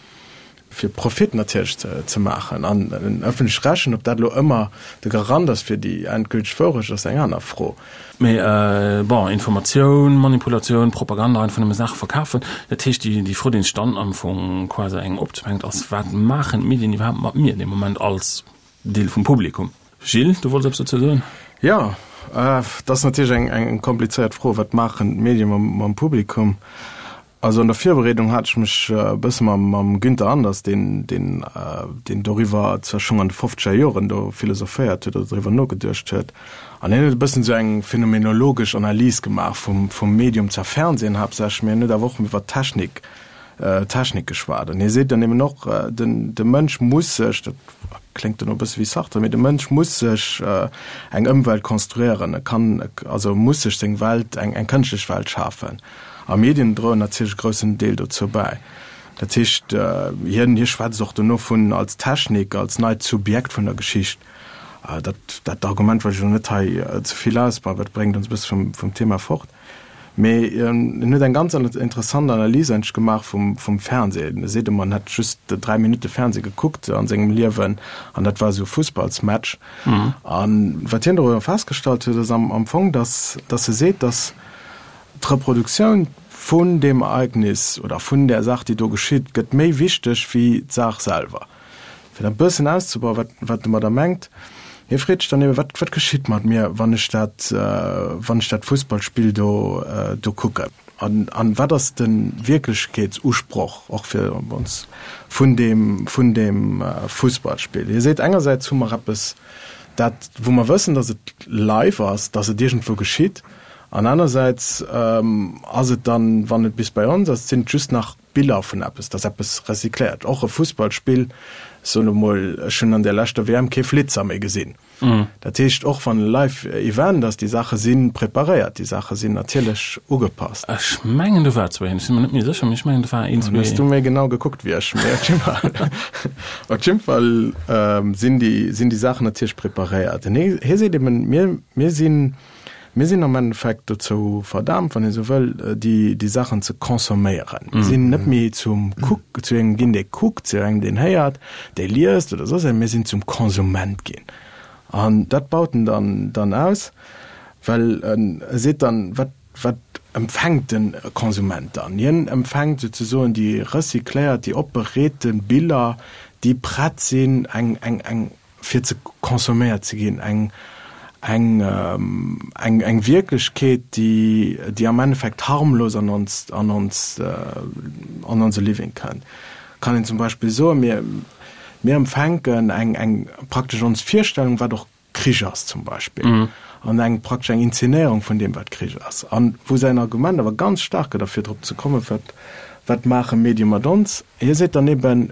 fir Profit natierlech ze maachen. An en ëffentlech-rechtlichen, ob dat elo ëmmer de Garant ass fir déi endgülteg Wourecht, ass eng aner Fro. Mee bon, Informatioun, Manipulatioun, Propaganda, einfach nëmme Saache verkafen, dat heescht déi déi Fro déi sech dann am Fong quasi engem opzwängt ass, wat maachen d'Medien iwwerhaapt mat mir dee Moment als Deel vum Publikum? Gilles, du wollts eppes dozou soen? Jo, dat ass natierlech eng eng komplizéiert Fro, Wat maachen d'Medie mam mam Publikum? Also an der Virbereedung hat ech mech e bësse mam mam Günther Anders, deen deen deen doriwwer zwar schonn an de fofzeger Joren do philosophéiert huet oder doriwwer nogeduecht huet, an hien huet e bëssen esou eng phänomenologesch Analys gemaach vum vum Medium, zwar Fernsehen haaptsächlech, mee hien huet awer och iwwer d'Technik Technik geschwat. An hie seet dann eben och, den de Mënsch muss sech, dat kléngt dann och e bësse wéi Sartre, mee de Mënsch muss sech eng Ëmwelt konstruieren, e kann, also muss sech seng Welt, eng eng kënschtlech Welt schafen. A Medien droen natierlech e groussen Deel dozou bäi. Dat heescht, hien hie schwätzt och dono vun als Technik, als neit Subjekt vun der Geschicht. Dat dat Argument wëll ech elo net hei ze vill ausbauen, well dat bréngt ons e bësse vum vum Thema fort. Mee en huet eng ganz interessant Analys eigentlech gemaach vum vum Fernseh. E seet ëmmer, en hätt just 3 Minutte Fernseh gekuckt a sengem Liewen an dat war esou e Fussballsmatch. A wat hien doriwwer festgestallt huet, ass am am Fong, datt datt e seet, datt d'Reproduktioun vun deem Ereignis oder vun där Saach, déi do geschitt, gëtt méi wichteg wéi d'Saach selwer. Fir dat e bëssen auszebauen, wat, wat domadder mengt, hie freet sech dann eben, wat, wat geschitt mat mir, wann ech dat, wann ech dat Fussballspill do, do kucken? An, an wat ass de Wierklechkeetsusproch och fir ons vun deem, vun deem Fussballspill? Hie seet, engersäits hu mer eppes, dat, wou mer wëssen, datt et live ass, datt et iergendwou geschitt, an anersäits ass et dann, wann et bis bei ons ass, sinn et just nach Biller vun eppes, datt eppes recycléiert. Och e Fussballspill, ech soen elo mol, ech hunn an där leschter WM kee Flitzer méi gesinn. Dat heescht, och wann e Live Event ass, déi Saache si preparéiert, déi Saache sinn natierlech ugepasst. Ech mengen do war zwou een, ech si mer net méi sécher, mee ech mengen do war een, zwee. Hues du méi genau gekuckt wéi ech, mee op jidde Fall, op jidde Fall sinn déi, sinn déi Saachen natierlech preparéiert. En hie seet eben, mir, mir sinn, mir sinn am Endeffekt dozou verdaamt, wann ee sou wëll, déi, déi Saachen ze consomméieren. Mir sinn net méi zum Kuck, zu engem ginn, dee kuckt, zu engem, deen héiert, dee liest oder soss eppes, mir sinn zum Konsument ginn. An dat baut en dann, dann aus, well en seet dann, wat, wat empfänkt de Konsument dann? Hien empfänkt souzesoen déi recycléiert, déi opbereete Biller, déi prett sinn, eng, eng, eng, fir ze consomméiert ze ginn, eng, eng, eng, eng Wierklechkeet, déi, déi am Endeffekt harmlos an ons, an ons, an onse Living kënnt. Kann een zum Beispill soen, mir, mir empfänken eng, eng praktesch ons Virstellung, wat och Krich ass zum Beispill, an eng praktesch eng Inzenéierung vun deem, wat Krich ass. An wou säin Argument awer ganz staark gëtt, a fir drop ze kommen, wat, wat maache Medie mat ons, hie seet dann eben,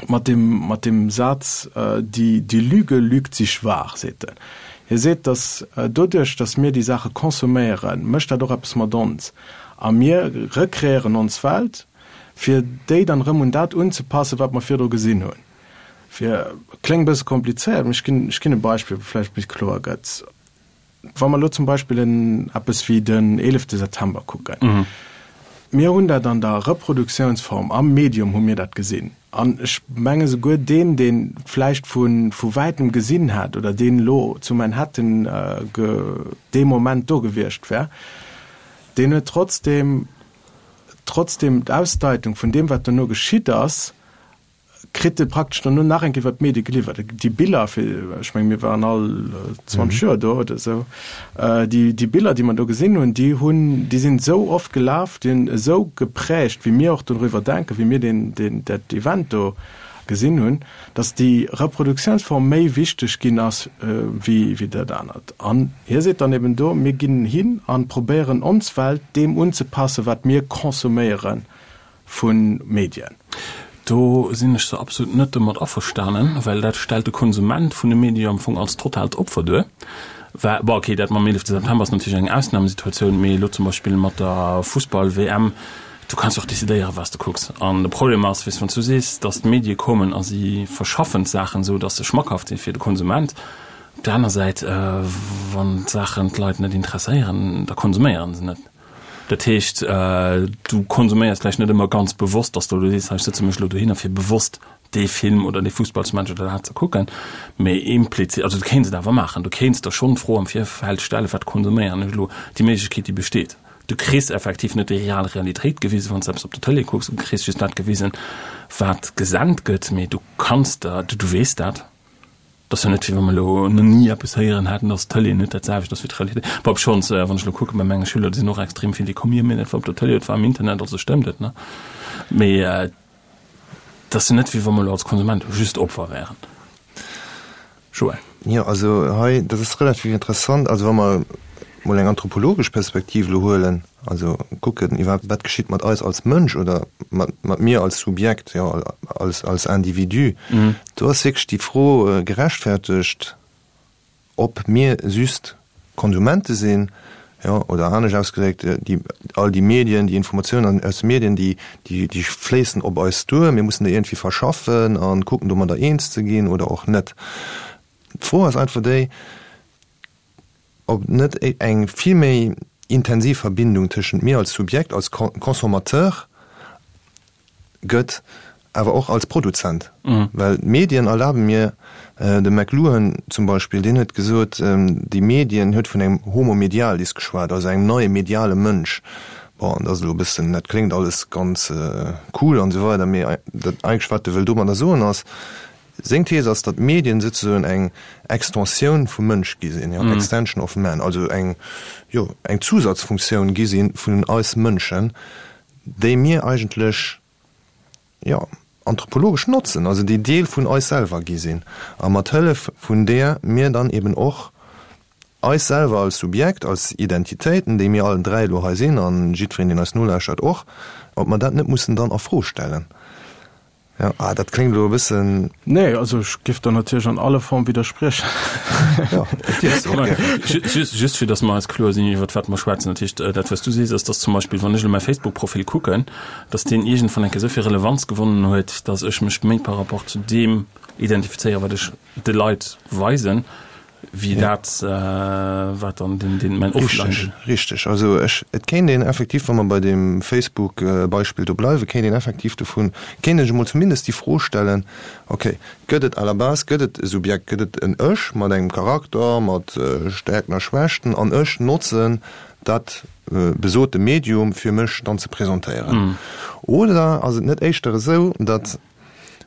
mat dem, mat dem Saz, die, die Lüge lügt sich wahr, seet en. Hie seet, datt doduerch, datt mir déi Saache consomméieren, mécht dat och eppes mat ons a mir rekreéieren ons Welt, fir déi dann erëm un dat unzepassen, wat mer virdru gesinn hunn. Fir, kléngt e bësse komplizéiert, mee ech ginn, ech ginn e Beispill, wou vläicht méi kloer gëtt. Wa mer elo zum Beispill en eppes wéi den eelefte September kucken, mir hunn dat an der Reproduktiounsform, am Medium hu mir dat gesinn. An ech menge souguer deen, dee vläicht vu vu wäitem gesinn hätt oder deen elo zu Manhattan dee Moment do gewiescht wär, deen huet trotzdem trotzdem d'Ausdeitung vun deem, wat dono geschitt ass, kritt e praktesch dono nach eng Kéier iwwer d'Medie geliwwert. Déi Biller, fir, ech menge mir waren all 20 Joer do oder esou, déi, déi Biller, déi mer do gesinn hunn, déi hunn, déi sinn esou oft gelaf, déi hunn esou geprägt, wéi mir och doriwwer denken, wéi mir deen, deen, dat Event do gesinn hunn, datt déi Reproduktiounsform méi wichteg ginn ass wéi, wéi dat anert. An hie seet dann eben do, mir ginn hin a probéieren ons Welt deem unzepassen, wat mir consomméieren vu Medien. Do sinn ech zwar absolut net domat averstanen, well dat stellt de Konsument vun de Medie jo am Fong als totaalt Opfer duer. Well, bon, okay, dat mam 11 September ass natierlech eng Ausnamesituatioun, mee elo zum Beispill mat der Fussball-WM, du kanns jo och decidéieren, wat s de kucks. An de Problem ass, weess, wann s du sees, datt d'Medie kommen a si verschaffen d'Saachen esou, datt se schmackhaft si fir de Konsument, op där aner Säit, wann d'Saachen d'Leit net interesséieren, da konsuméieren se net. Dat heescht, du konsuméiers vläicht net ëmmer ganz bewosst, dass du elo sees, hei ech sëtze mech elo dohinner fir bewosst dee Film oder dee Fussballsmatch oder dat ze kucken, mee implizit, also du kéints et awer maachen, du kéints der schonn d'Fro am Virfeld stellen, wat konsuméieren ech elo, déi Méiglechkeet déi besteet. Du kriss effektiv net déi real Realitéit gewisen, wann s de eppes op der Tëlee kucks, du kriss just dat gewisen, wat gesent gëtt, mee du kanns der, du weess dat. Et ass jo net, wéi wa mer elo nach ni eppes héieren hätten, dass d'Tëlee net dat selwecht ass wéi d'Realitéit. Bon, obschonns, wann ech elo kucke bei menge Schüler, déi sinn och extrem vill, déi kommen, jo, mee dat war op der Tëlee, dat war am Internet, also stëmmt et, ne? Mee et ass jo net, wéi wa mer elo als Konsument just Opfer wären. Joël. Jo, also hei, dat ass relativ interessant. Also wa mer mol eng anthropologesch Perspektiv elo huelen, also kucken iwwerhaapt, wat geschitt mat eis als Mënsch oder mat, mat mir als Subjekt, jo, als, als Individu, do ass wierklech déi Fro gerechtfertegt, ob mir just Konsumente sinn, jo, oder anescht ausgedréckt, déi, all déi Medien, déi Informatiounen aus de Medien, déi, déi, déi fléissen op eis duer, mir mussen déi iergendwéi verschaffen a kucken domadder eens ze ginn oder och net. D'Fro ass einfach déi, ob net eng vill méi intensiv Verbindung tëschent mir als Subjekt, als Consommateur gëtt, awer och als Produzent. Well d'Medien erlabe mir, de McLuhan zum Beispill, deen huet gesot, déi Medien, huet vun engem Homo medialis geschwat, also engem neie mediale Mënsch. Bon, dat ass elo e bëssen, dat kléngt alles ganz cool an esou weider, mee dat eigentlech wat e wëll domadder soen ass. Seng Thees ass, datt d'Medien souzesoen eng Extensioun vum Mënsch gi sinn, jo, extension of man, also eng, jo, eng Zusatzfunktioun gi si vun eis Mënschen, déi mir eigentlech, jo, anthropologesch notzen, also déi Deel vun eis selwer gi sinn a mat Hëllef vun deeër mir dann eben och eis selwer als Subjekt, als Identitéiten, déi mir allen 3 elo hei sinn an jiddwereen, deen eis nolauschtert och, ob mer dat net mussen dann a Fro stellen. Jo, ah, dat kléngt elo e bëssen. Nee, also ech géif der natierlech an alle Form widderspriechen. Jo, dat dierfs de och gären. Just, just fir datt mer eis kloer sinn, iwwert wat mer schwätzen. Dat heescht, dat wat s du sees, ass, datt zum Beispill, wann ech elo mäi Facebook-Profil kucken, datt deen iergendwann eng Kéier esou vill Relevanz gewonnen huet, datt ech mech méi par rapport zu deem identifizéieren, wat ech de Leit weisen, wéi dat, wat dann den, den, mäin Offline. Richteg, richteg. Also ech, et kéint een effektiv, wa mer bei deem Facebook-Beispill do bleiwen, kéint een effektiv dovun, kéint ech emol zumindest déi Fro stellen, okay, gëtt et à la base, gëtt et e Subjekt, gëtt et en Ech mat engem Charakter, mat Stärkten a Schwächten an ech notzen dat besote Medium, fir mech dann ze presentéieren? Oder ass et net éischter esou, datt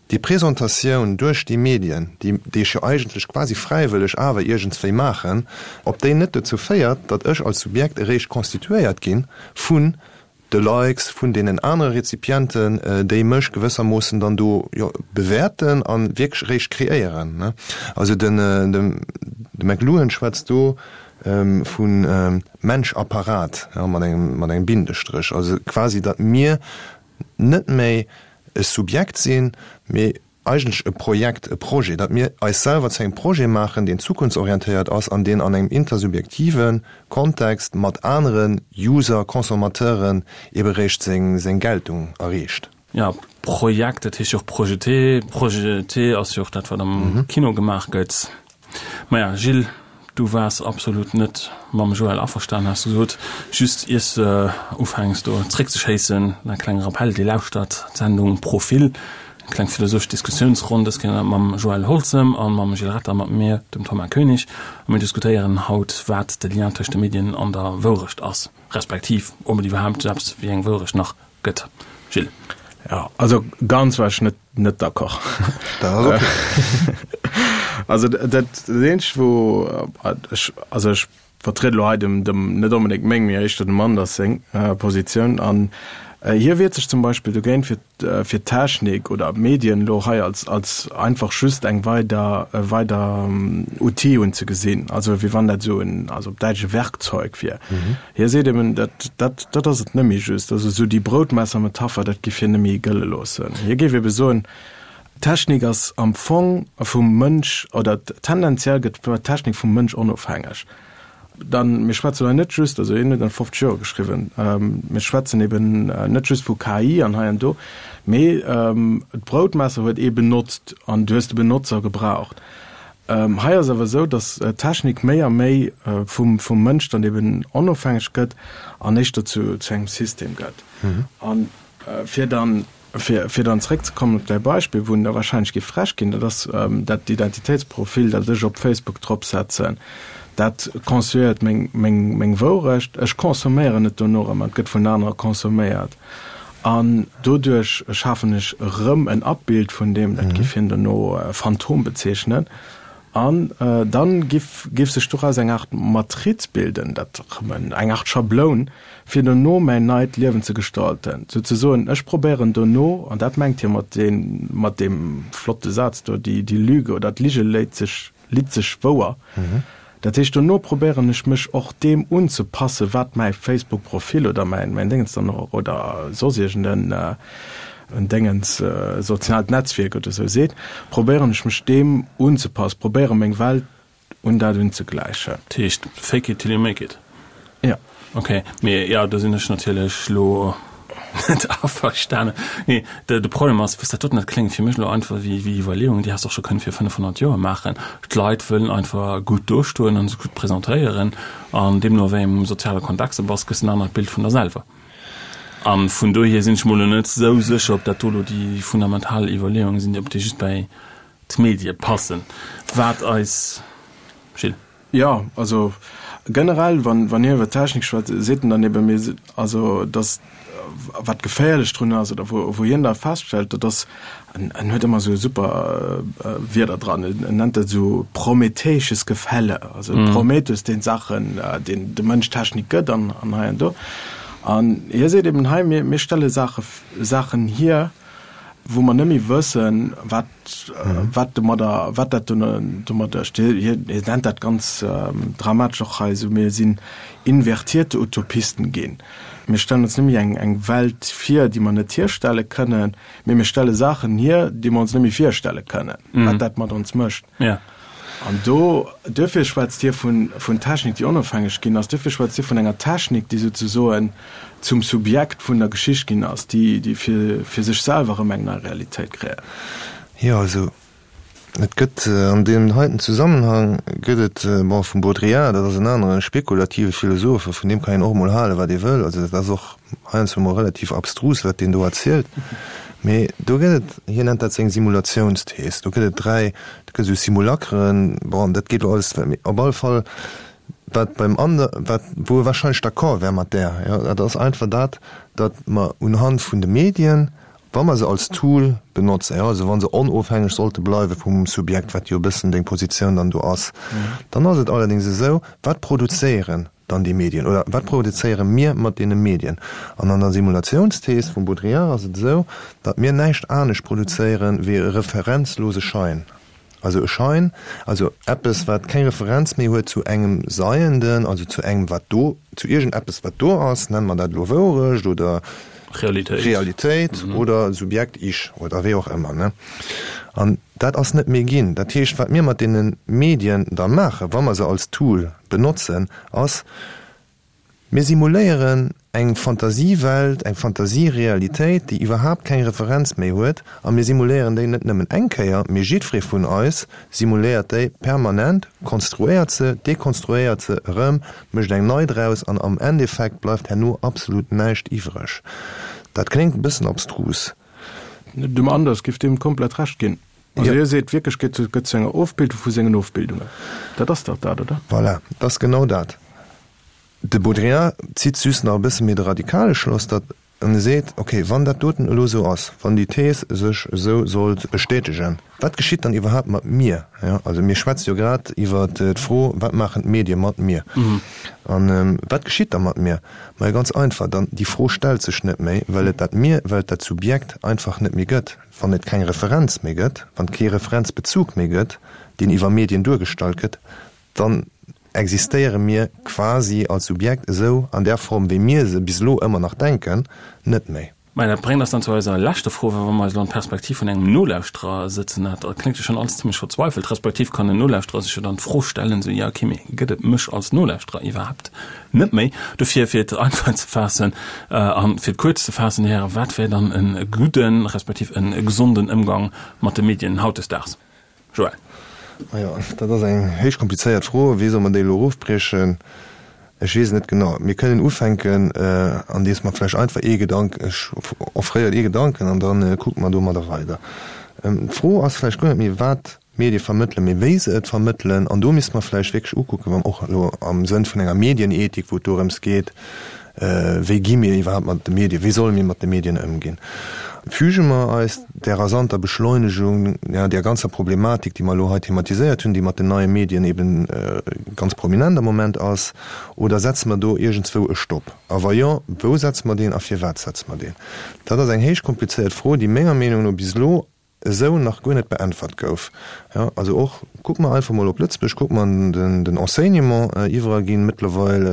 Déi Presentatioun duerch déi Medien, déi déi ech jo eigentlech quasi fräiwëlleg awer iergendswéi maachen, ob déi net dozou féiert, datt ech als Subjekt eréischt constituéiert gi vun de Likes, vun deenen anere Rezipienten, déi mech gewëssermoossen dann do, jo, bewäerten a wierklech eréischt kreéieren. Also den de McLuhan schwätzt do vu Mensch-Apparat, jo, mat engem mat engem Bindestréch, also quasi datt mir net méi e Subjekt sinn, mee eigentlech e Projekt, e Projet, datt mir eis selwer zu engem Projet maachen, deen zukunftsorientéiert ass an deen an engem intersubjektive Kontext mat anere User, Consommateuren ebe réischt seng Geltung erreecht. Jo, Projekt, dat heescht jo och projeté. Projeté ass jo och dat, wat am Kino gemaach gëtt. Maja, Gilles, du waars absolut net mam Joël averstan, has du gesot. Just iers de ufänks do zréckzeschéissen, e klenge Rappell, Dir lauschtert d'Sendung Profil, eng kleng philosophesch Diskussiounsronn, dës Kéier mam Joël Holzem a mam Gilles Retter, mat mir, dem Thomas Koenig. A mir diskutéieren haut, wat de Lien tëscht de Medien an der Wourecht ass, respektiv ob et iwwerhaapt esou eppes wéi eng Wourecht nach gëtt. Gilles. Jo, also ganz war ech net net d'accord. Dat ass okay. Also dat dat eenzegt wou ech also ech vertriede lo hei dem dem net onbedéngt meng, mee éischter dem Anders seng Positioun an hie wiert sech zum Beispill dogéint fir fir d'Technik oder d'Medien elo hei als als einfach just eng weider e weider Outil unzegesinn, also wéi wann dat esou en also op Däitsch e Werkzeug wier. Hie seet eben, dat, dat, dat ass et net méi just. Also esou déi Broutmesser-Metapher, dat giff hien net méi gëlle loossen. Hie géif ebe soen, Technik ass am Fong vum Mënsch, oder tendenziell gëtt d'Technik vum Mënsch onofhängeg. Dann, mir schwätzen hei net just, also hien huet an 50 Joer geschriwwen, mir schwätzen eben net just vu KI an hei an do, mee d'Broutmesser huet ee benotzt an du hues de Benotzer gebraucht. Hei ass awer esou, datt d'Technik méi a méi vum Mënsch dann eben onofhängeg gëtt an éischter zu engem System gëtt. A fir dann, fir dann zréckzekommen op däi Beispill, wou en da wahrscheinlech géif frech ginn, dat ass dat Identitéitsprofil, dat ech op Facebook dropsetzen, dat konstruéiert meng Wourecht. Ech consomméieren et dono erëm an et gëtt vun anere consomméiert. An doduerch schafen ech erëm en Abbild vun deem, dat giff hien dono Phantom bezeechnen, an dann giff giff sech doraus eng Art Matriz bilden, dat erëm eng Art Schabloun, fir dono mäin neit Liewen ze gestalten. Souzesoen, ech probéieren dono, an dat mengt hie mat deem mat deem flotte Saz do, die die Lüge oder d'Lige léit sech litt sech wouer. Dat heescht, dono probéieren ech mech och deem unzepassen, wat mäi Facebook-Profil oder mäin mäin Déngens dann och oder soss iergend en en Déngens, soziaalt Netzwierk oder sou seet, probéieren ech mech deem unzepassen, probéiere meng Welt un dat unzegläichen. Dat heescht, fake it till you make it? Jo. Ok, mee jo, do sinn ech natierlech lo net averstanen. Nee, de, de Problem ass, wësst dat doten, dat kléngt fir mech elo einfach wéi, wéi Iwwerleeungen, déi häss de och scho kënnen vir 500 Joer maachen. D'Leit wëllen einfach gutt dostoen an sech gutt presentéieren an deemno wéi engem soziale Kontext de bass, gëss en anert Bild vun der selwer. A vun dohier sinn ech mol elo net esou sécher, ob dat do elo déi fundamental Iwwerleeungen sinn, ob déi just bäi d'Medie passen. Wat eis, Gilles? Jo, also generell, wann, wann hien iwwer Technik schwätzt, seet en dann eben, mir, also datt. wat geféierlech drun ass oder wou, wou hien da feststellt, dat ass, en, en huet ëmmer esou super Wierder dran, en nennt dat esou prometheisches Gefälle, also Prometheus, deen d'Saachen, deen de Mënsch Technik gëtt an, an hei an do. An hie seet eben hei, mir, mir stelle Saache, Saachen hier, wou mer net méi wëssen, wat, wat domadder, wat dat domadder hie nennt dat ganz dramatesch och hei esou, mir sinn invertierte Utopisten ginn. Mir stellen ons net méi eng, eng Welt vir, déi mer net hierstelle kënnen, mee mir stelle Saachen hier, déi mer ons net méi virstelle kënnen, wat dat mat ons mécht. An do, duerfir schwätzt hie vun, vun Technik, déi onofhängeg ginn ass, duerfir schwätzt hie vun enger Technik, déi souzesoen zum Subjekt vun der Geschicht ginn ass, déi, déi fir, fir sech selwer erëm eng nei Realitéit kreéiert. Jo, also et gëtt an deem heiten Zusammenhang gëtt et, bon, vum Baudrillard, dat ass en anere spekulative Philosoph, a vun deem kann een och emol halen, wat ee wëll, also dat ass och heiansdo emol relativ abstrus, wat deen do erzielt, mee do gëtt et, hien nennt dat seng Simulatiounsthees, do gëtt et 3, do gëtt esou Simulacren, bon, dat geet elo alles, mee op alle Fall, wat beim ander, wat, wou e wahrscheinlech d'accord wär mat där, jo, dat ass einfach dat, datt mer unhand vun de Medien, wa mer se als Tool benotzen, jo, also wa se onofhängeg sollte bleiwe vum Subjekt, wat jo e bëssen deng Positioun dann do ass, dann ass et allerdéngs esou, wat produzéieren dann déi Medien oder wat produzéiere mir mat deene Medien? An an der Simulatiounsthees vum Baudrillard ass et esou, datt mir näischt anescht produzéiere wéi e referenzlose Schein. Also e Schein, also eppes wat keng Referenz méi huet zu engem Seienden, also zu engem wat do, zu iergendeppes wat do ass, nenne mer dat elo Wourecht oder Realitéit, Realitéit oder Subjekt, Ich oder wéi och ëmmer, ne? An dat ass net méi ginn. Dat heescht, wat mir mat deene Medien da maachen, wa mer se als Tool benotzen, ass, mir simuléieren eng Fantasiewelt, eng Fantasierealitéit, déi iwwerhaapt keng Referenz méi huet, a mir simuléieren déi net nëmmen eng Kéier, mee jiddweree vun eis simuléiert déi permanent, konstruéiert se, dekonstruéiert se erëm, mécht eng nei draus, an am Endeffekt bleift herno absolut näischt iwwreg. Dat kléngt e bëssen abstrus. Dem Anders giff deem komplett Recht ginn. Also hie seet wierklech, gëtt gëtt zu enger Ofbildung vu sengen Ofbildungen. Dat ass dach dat, oder? Voilà, dat ass genau dat. De Baudrillard zitt just nach e bësse méi de radikale Schloss, datt en e seet, okay, wann dat doten elo esou ass, wann déi Thees sech esou sollt bestätegen, wat geschitt dann iwwerhaapt mat mir? Jo, also mir schwätze jo grad iwwer d'Fro, wat maachen d'Medie mat mir? An wat geschitt da mat mir? Majo, ganz einfach, dann déi Fro stellt sech net méi, well et dat Mir, well et dat Subjekt einfach net méi gëtt. Wann et keng Referenz méi gëtt, wann et kee Referenzbezug méi gëtt, deen iwwer Medien duergestallt gëtt, dann existéiere mir quasi als Subjekt esou an där Form, wéi mir se bis elo ëmmer nach denken, net méi. Mä dat bréngt eis dann zu eiser leschter Fro, well wa mer eis elo an d'Perspektiv vun engem Nolauschterer sëtzen, dat kléngt jo schonn alles zimmlech verzweifelt, respektiv kann en Nolauschterer sech jo dann d'Fro stellen, esou, jo okay, mee gëtt et mech als Nolauschterer iwwerhaapt net méi? Dofir, fir et einfach ze faassen a fir et kuerz ze faassen, Här Hären, wat wär dann e gudden, respektiv e gesonden Ëmgang mat de Medien hautdesdaags? Joël. Majo, dat ass eng héich komplizéiert Fro. Wéi soll mer déi elo erofbriechen? Ech weess et net genau. Mir kënnen ufänken, andeems mer vläicht einfach ee Gedank, ech offréieren ee Gedanken an da kucke mer domadder weider. D'Fro ass vläicht guer net méi, wat d'Medie vermëttelen, mee wéi se et vermëttelen. An do misste mer vläicht wierklech ukucken, wa och elo am Sënn vun enger Medienethik, wou et dorëms geet, Wéi gi mir iwwerhaapt mat de Medien, wéi solle mir mat de Medien ëmginn? Füge mer eis där rasanter Beschleunegung, ja, där ganzer Problematik, déi mer elo hei thematiséiert hunn, déi mat den neie Medien eben ganz prominent am Moment ass, oder setze mer do iergendswou e Stopp? A wa jo, wou setze mer deen a firwat setze mer deen? Dat ass eng héich komplizéiert Fro, déi menger Meenung no bis elo esou nach guer net beäntwert gouf. Jo, also och, kucke mer einfach mol op Lëtzebuerg, kucke mer den, den Enseignement, iwwerall ginn mëttlerweil,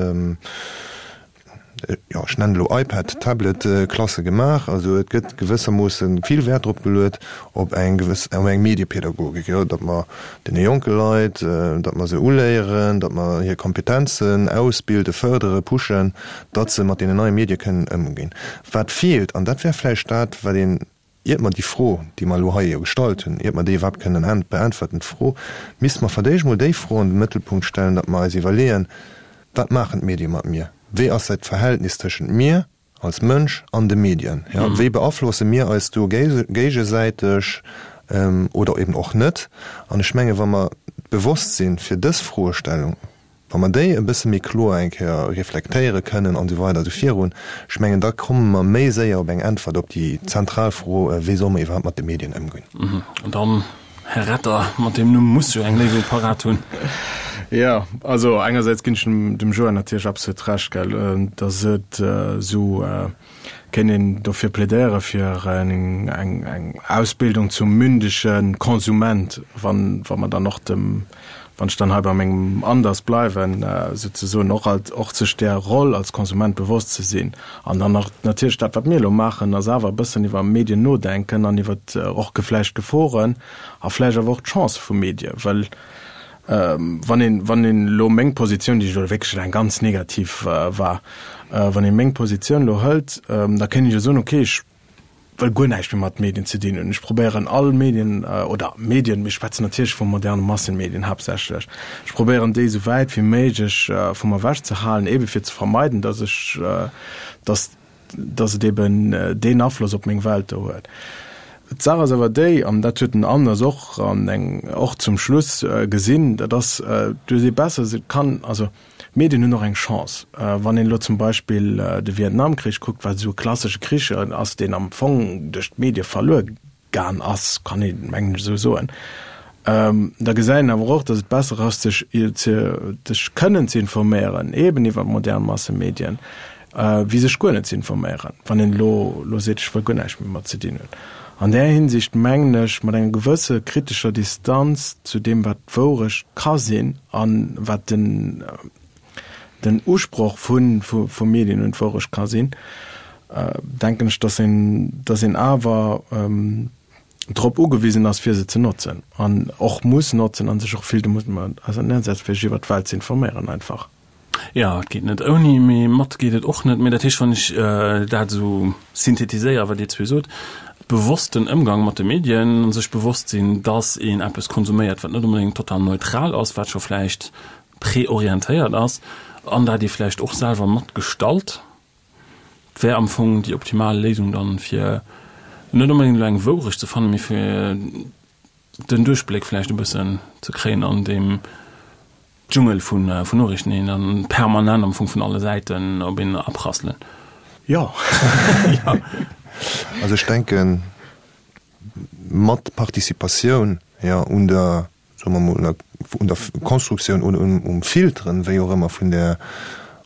jo, ech nennen elo iPad, Tablet, Klasse gemaach. Also et gëtt gewëssermoosse vill Wäert drop geluet op eng gewëss, op eng Mediepädagogik, jo, datt mer deene jonke Leit, datt mer se uléieren, datt mer hir Kompetenzen ausbilden, fërdere, pushen, datt se mat deenen neie Medie kënnen ëmginn. Wat feelt, an dat wär vläicht dat, wat een Iert mer déi Fro, déi mer elo hei jo gestallt hunn, iert mer déi iwwerhaapt kënnen beäntwerten, d'Fro, misste mer verdéischt mol déi Fro an den Mëttelpunkt stellen, datt mer eis iwwerleeën, Wat maachen d'Medie mat mir? Wéi ass dat Verhältnis tëschent mir als Mënsch an de Medien? Jo, wéi beaflosse mir eis do géigesäiteg oder eben och net? An ech menge wa mer d'Bewosstsinn fir dës Froestellung, Wa. Wa mer déi e bësse méi kloer eng Kéier reflektéiere kënnen an esou weider esou virun, ech mengen, da komme mer méi séier op eng Äntwert op déi zentral Fro, Wéi solle mer iwwerhaapt mat de Medien ëmgoen? An dann, Här Retter, mat deem Numm muss jo eng Léisung parat hunn. Jo, also engersäits ginn ech dem Joël natierlech absolut Recht, gell, datt et esou kéint een dofir plädéiere fir eng eng Ausbildung zum mündege Konsument, wann wa mer dann och dem, wann ech dann hei bei mengem Anders bleiwen, souzesoen och alt och sech där Roll als Konsument bewosst ze sinn. An dann och natierlech dat, wat mir elo maachen, ass awer e bëssen iwwer Medien nodenken an iwwer och vläicht d'Geforen a vläicht awer och d'Chancë vu Medie, well Wann een, wann een elo meng Positioun, déi elo wierklech eng ganz negativ war, wann ee meng Positioun elo hëlt, da kéint ech jo soen, okay, ech wëll guer näischt méi mat Medien ze dinn hunn, ech probéieren all Medien, oder Medien, mir schwätzen natierlech vu moderne Massenmedien haaptsächlech, ech probéieren déi esou wäit wéi méiglech vu mer ewech ze halen, eebe fir ze vermeiden, datt ech, datt dass et eben deen Afloss op meng Welt do huet. D'Saach ass awer déi, an dat huet den Anders och an eng och zum Schluss gesinn, dat ass, du hues ee besser, se kann, also d'Medien hunn och eng Chance. Wann een elo zum Beispill de Vietnamkrich kuckt, wat esou e klassesche Krich ass, deen am Fong duerch d'Medie verluer Gaan ass, kann ee mengen ech esou soen, da gesäit een awer och, datt et besser ass, sech sech kënnen ze informéieren, eben iwwer modern Massemedien, wéi sech guer net ze informéieren, wann een elo elo seet, ech wëll guer näischt méi mat ze dinn hunn. An där Hinsicht mengen ech, mat enger gewësse kritescher Distanz zu deem, wat d'Wourecht ka sinn a wat den den Usproch vu vu Medien un d'Wourecht ka sinn, denken ech, dass een, dass een awer drop ugewisen ass, fir se ze notzen an och muss notzen a sech och vill domat auserneersetzt, fir sech iwwer d'Welt ze informéieren einfach. Jo, et geet net ouni, mee mat geet et och net. Mee dat heescht, wann ech dat esou synthetiséieren, wat Dir zwee sot, bewossten Ëmgang mat de Medien, sech bewosst sinn, dass een eppes konsuméiert, wat net onbedéngt total neutral ass, wat scho vläicht preorientéiert ass an dat ee vläicht och selwer mat gestalt, wär am Fong déi optimal Léisung dann, fir net onbedéngt elo eng Wourecht ze fannen, mee fir den Duerchbléck vläicht e bëssen ze kréien an deem Dschungel vun Noriichten, déi dann permanent am Fong vun alle Säiten op een aprasseln. Jo. Also ech denken, mat Participatioun, jo, un der soe mer mol, un der Konstruktioun oder um Filteren, wéi och ëmmer, vun där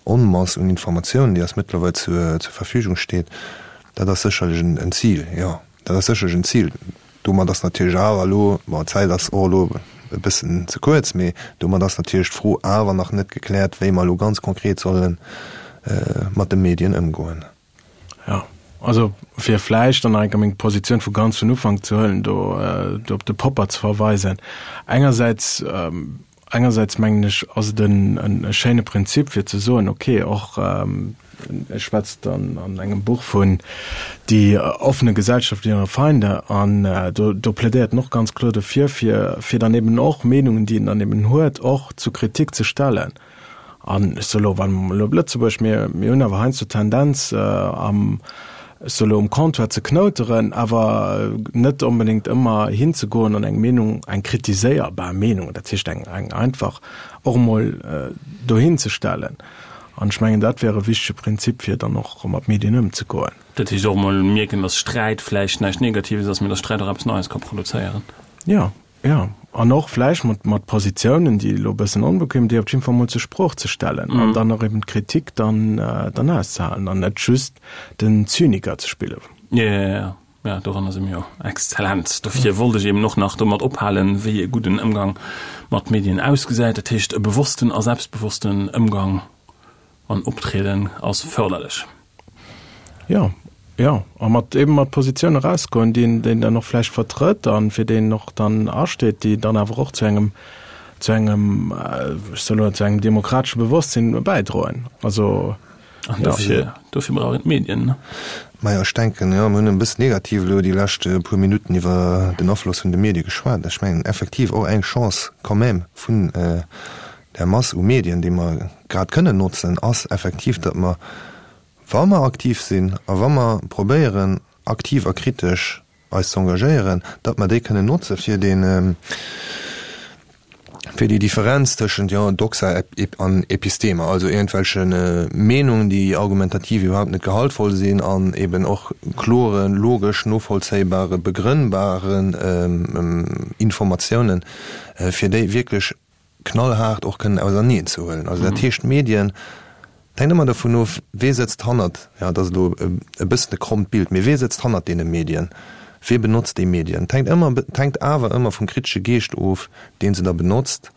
Onmass un Informatiounen, déi eis mëttlerweil zur Verfügung steet, dat ass sécherlech en Zil, jo, dat ass sécherlech en Zil. Domat ass natierlech awer elo, bon, d'Zäit ass och elo e bëssen ze kuerz, mee domat ass natierlech d'Fro awer nach net gekläert, wéi mer elo ganz konkret solle mat de Medien ëmgoen. Jo, also fir vläicht dann nach eng Kéier meng Positioun vu ganz vun Ufank ze huelen, do do op de Popper ze verweisen. Engersäits, engersäits mengen ech, ass et en e schéine Prinzip fir ze soen, okay, och e schwätzt dann an engem Buch vun Die offene Gesellschaft und ihre Feinde an do do plädéiert en och ganz kloer dofir, fir fir dann eben och Meenungen, déi een dann eben huet, och zur Kritik ze stellen. An ech soe lo, wa mer elo op Lëtzebuerg, mir, mir hunn awer heiansdo d'Tendenz, am, ech soe lo, um Comptoir ze knouteren, awer net onbedéngt ëmmer hinzegoen an eng Meenung, eng kritiséierbar Meenung, dat heescht eng, eng einfach, och emol dohinzestellen. An ech mengen, dat wär e wichtege Prinzip, fir dann och mat Medien ëmzegoen. Dat heescht och emol mierken, datt Sträit vläicht näischt Negatives ass, mee datt Sträit och eppes Neies ka produzéieren. Jo. Jo, an och vläicht mat, mat Positiounen, déi elo e bëssen onbequem, déi op jidde Fall mol zur Sprooch ze stellen an dann och eben d'Kritik dann, dann auszehalen an net just den Zyniker ze spillen. Jo, jo, jo, jo, doranner si mir jo exzellent. Dofir wollt ech eben och nach domat ophalen, wéi e gudden Ëmgang mat Medien ausgesäit. Dat heescht, e bewossten a selbstbewossten Ëmgang an Optrieden ass förderlech. Jo, jo, a mat eben mat Positioune erausgoen, déi een, déi een dann och vläicht vertrëtt a fir déi een och dann asteet, déi dann awer och zu engem, zu engem, ech soe lo, zu engem demokratesche Bewosstsinn bäidroen. Also, An dofir, dofir brauch een d'Medien, ne? Majo, ech denken, jo, mir hunn e bëssen negativ elo déi lescht puer Minutten iwwer den Afloss vun de Medie geschwat. Ech mengen effektiv och eng Chance quand même vun där Mass u Medien, déi mer grad kënnen notzen, ass effektiv, datt mer, wa mer aktiv sinn a wa mer probéieren, aktiv a kritesch eis ze engagéieren, datt mer déi kënnen notze fir dee, Fir déi Differenz tëschent, jo, Doxa an Episteme, also iergendwelche Meenungen, déi argumentativ iwwerhaupt net gehaltvoll sinn an eben och kloren, logesch novollzéibare, begrënnbaren Informatiounen, fir déi wierklech knallhaart och kënnen auserneen ze huelen. Also dat heescht, d'Medien, et hänkt ëmmer dovun of, wee sëtzt hannert, jo, dat ass elo e bëssen e krommt Bild, mee wee sëtzt hannert deene Medien, wee benotzt déi Medien? Et hänkt ëmmer, et hänkt awer ëmmer vum kritesche Geescht of, dee se da benotzt.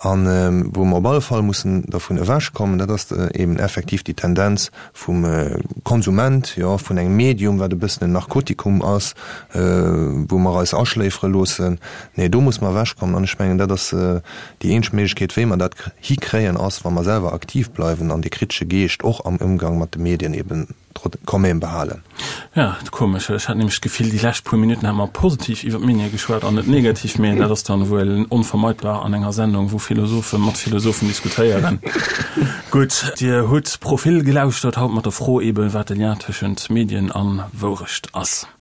An wou mer op alle Fall mussen dervun ewechkommen, dat ass eben effektiv déi Tendenz vum Konsument, jo, vun engem Medium, wat e bëssen en Narkotikum ass, wou mer eis aschléifere loossen. Nee, do muss mer ewechkommen. An ech mengen, dat ass déi eenzeg Méiglechkeet, wéi mer dat hikréien, ass, wa mer selwer aktiv bleiwen an dee kritesche Geescht och am Ëmgang mat de Medien eben quand même behalen. Ja, komesch. Ech hat nämlech d'Gefill, déi lescht puer Minutten hätte mer positiv iwwer d'Medie geschwat an net negativ. Mee dat ass dann wuel onvermeidbar an enger Sendung, wou Philosophe mat Philosophen diskutéieren. Gutt, Dir hutt Profil gelauschtert, haut mat der Fro eben, wat de Lien tëschent Medien a Wourecht ass.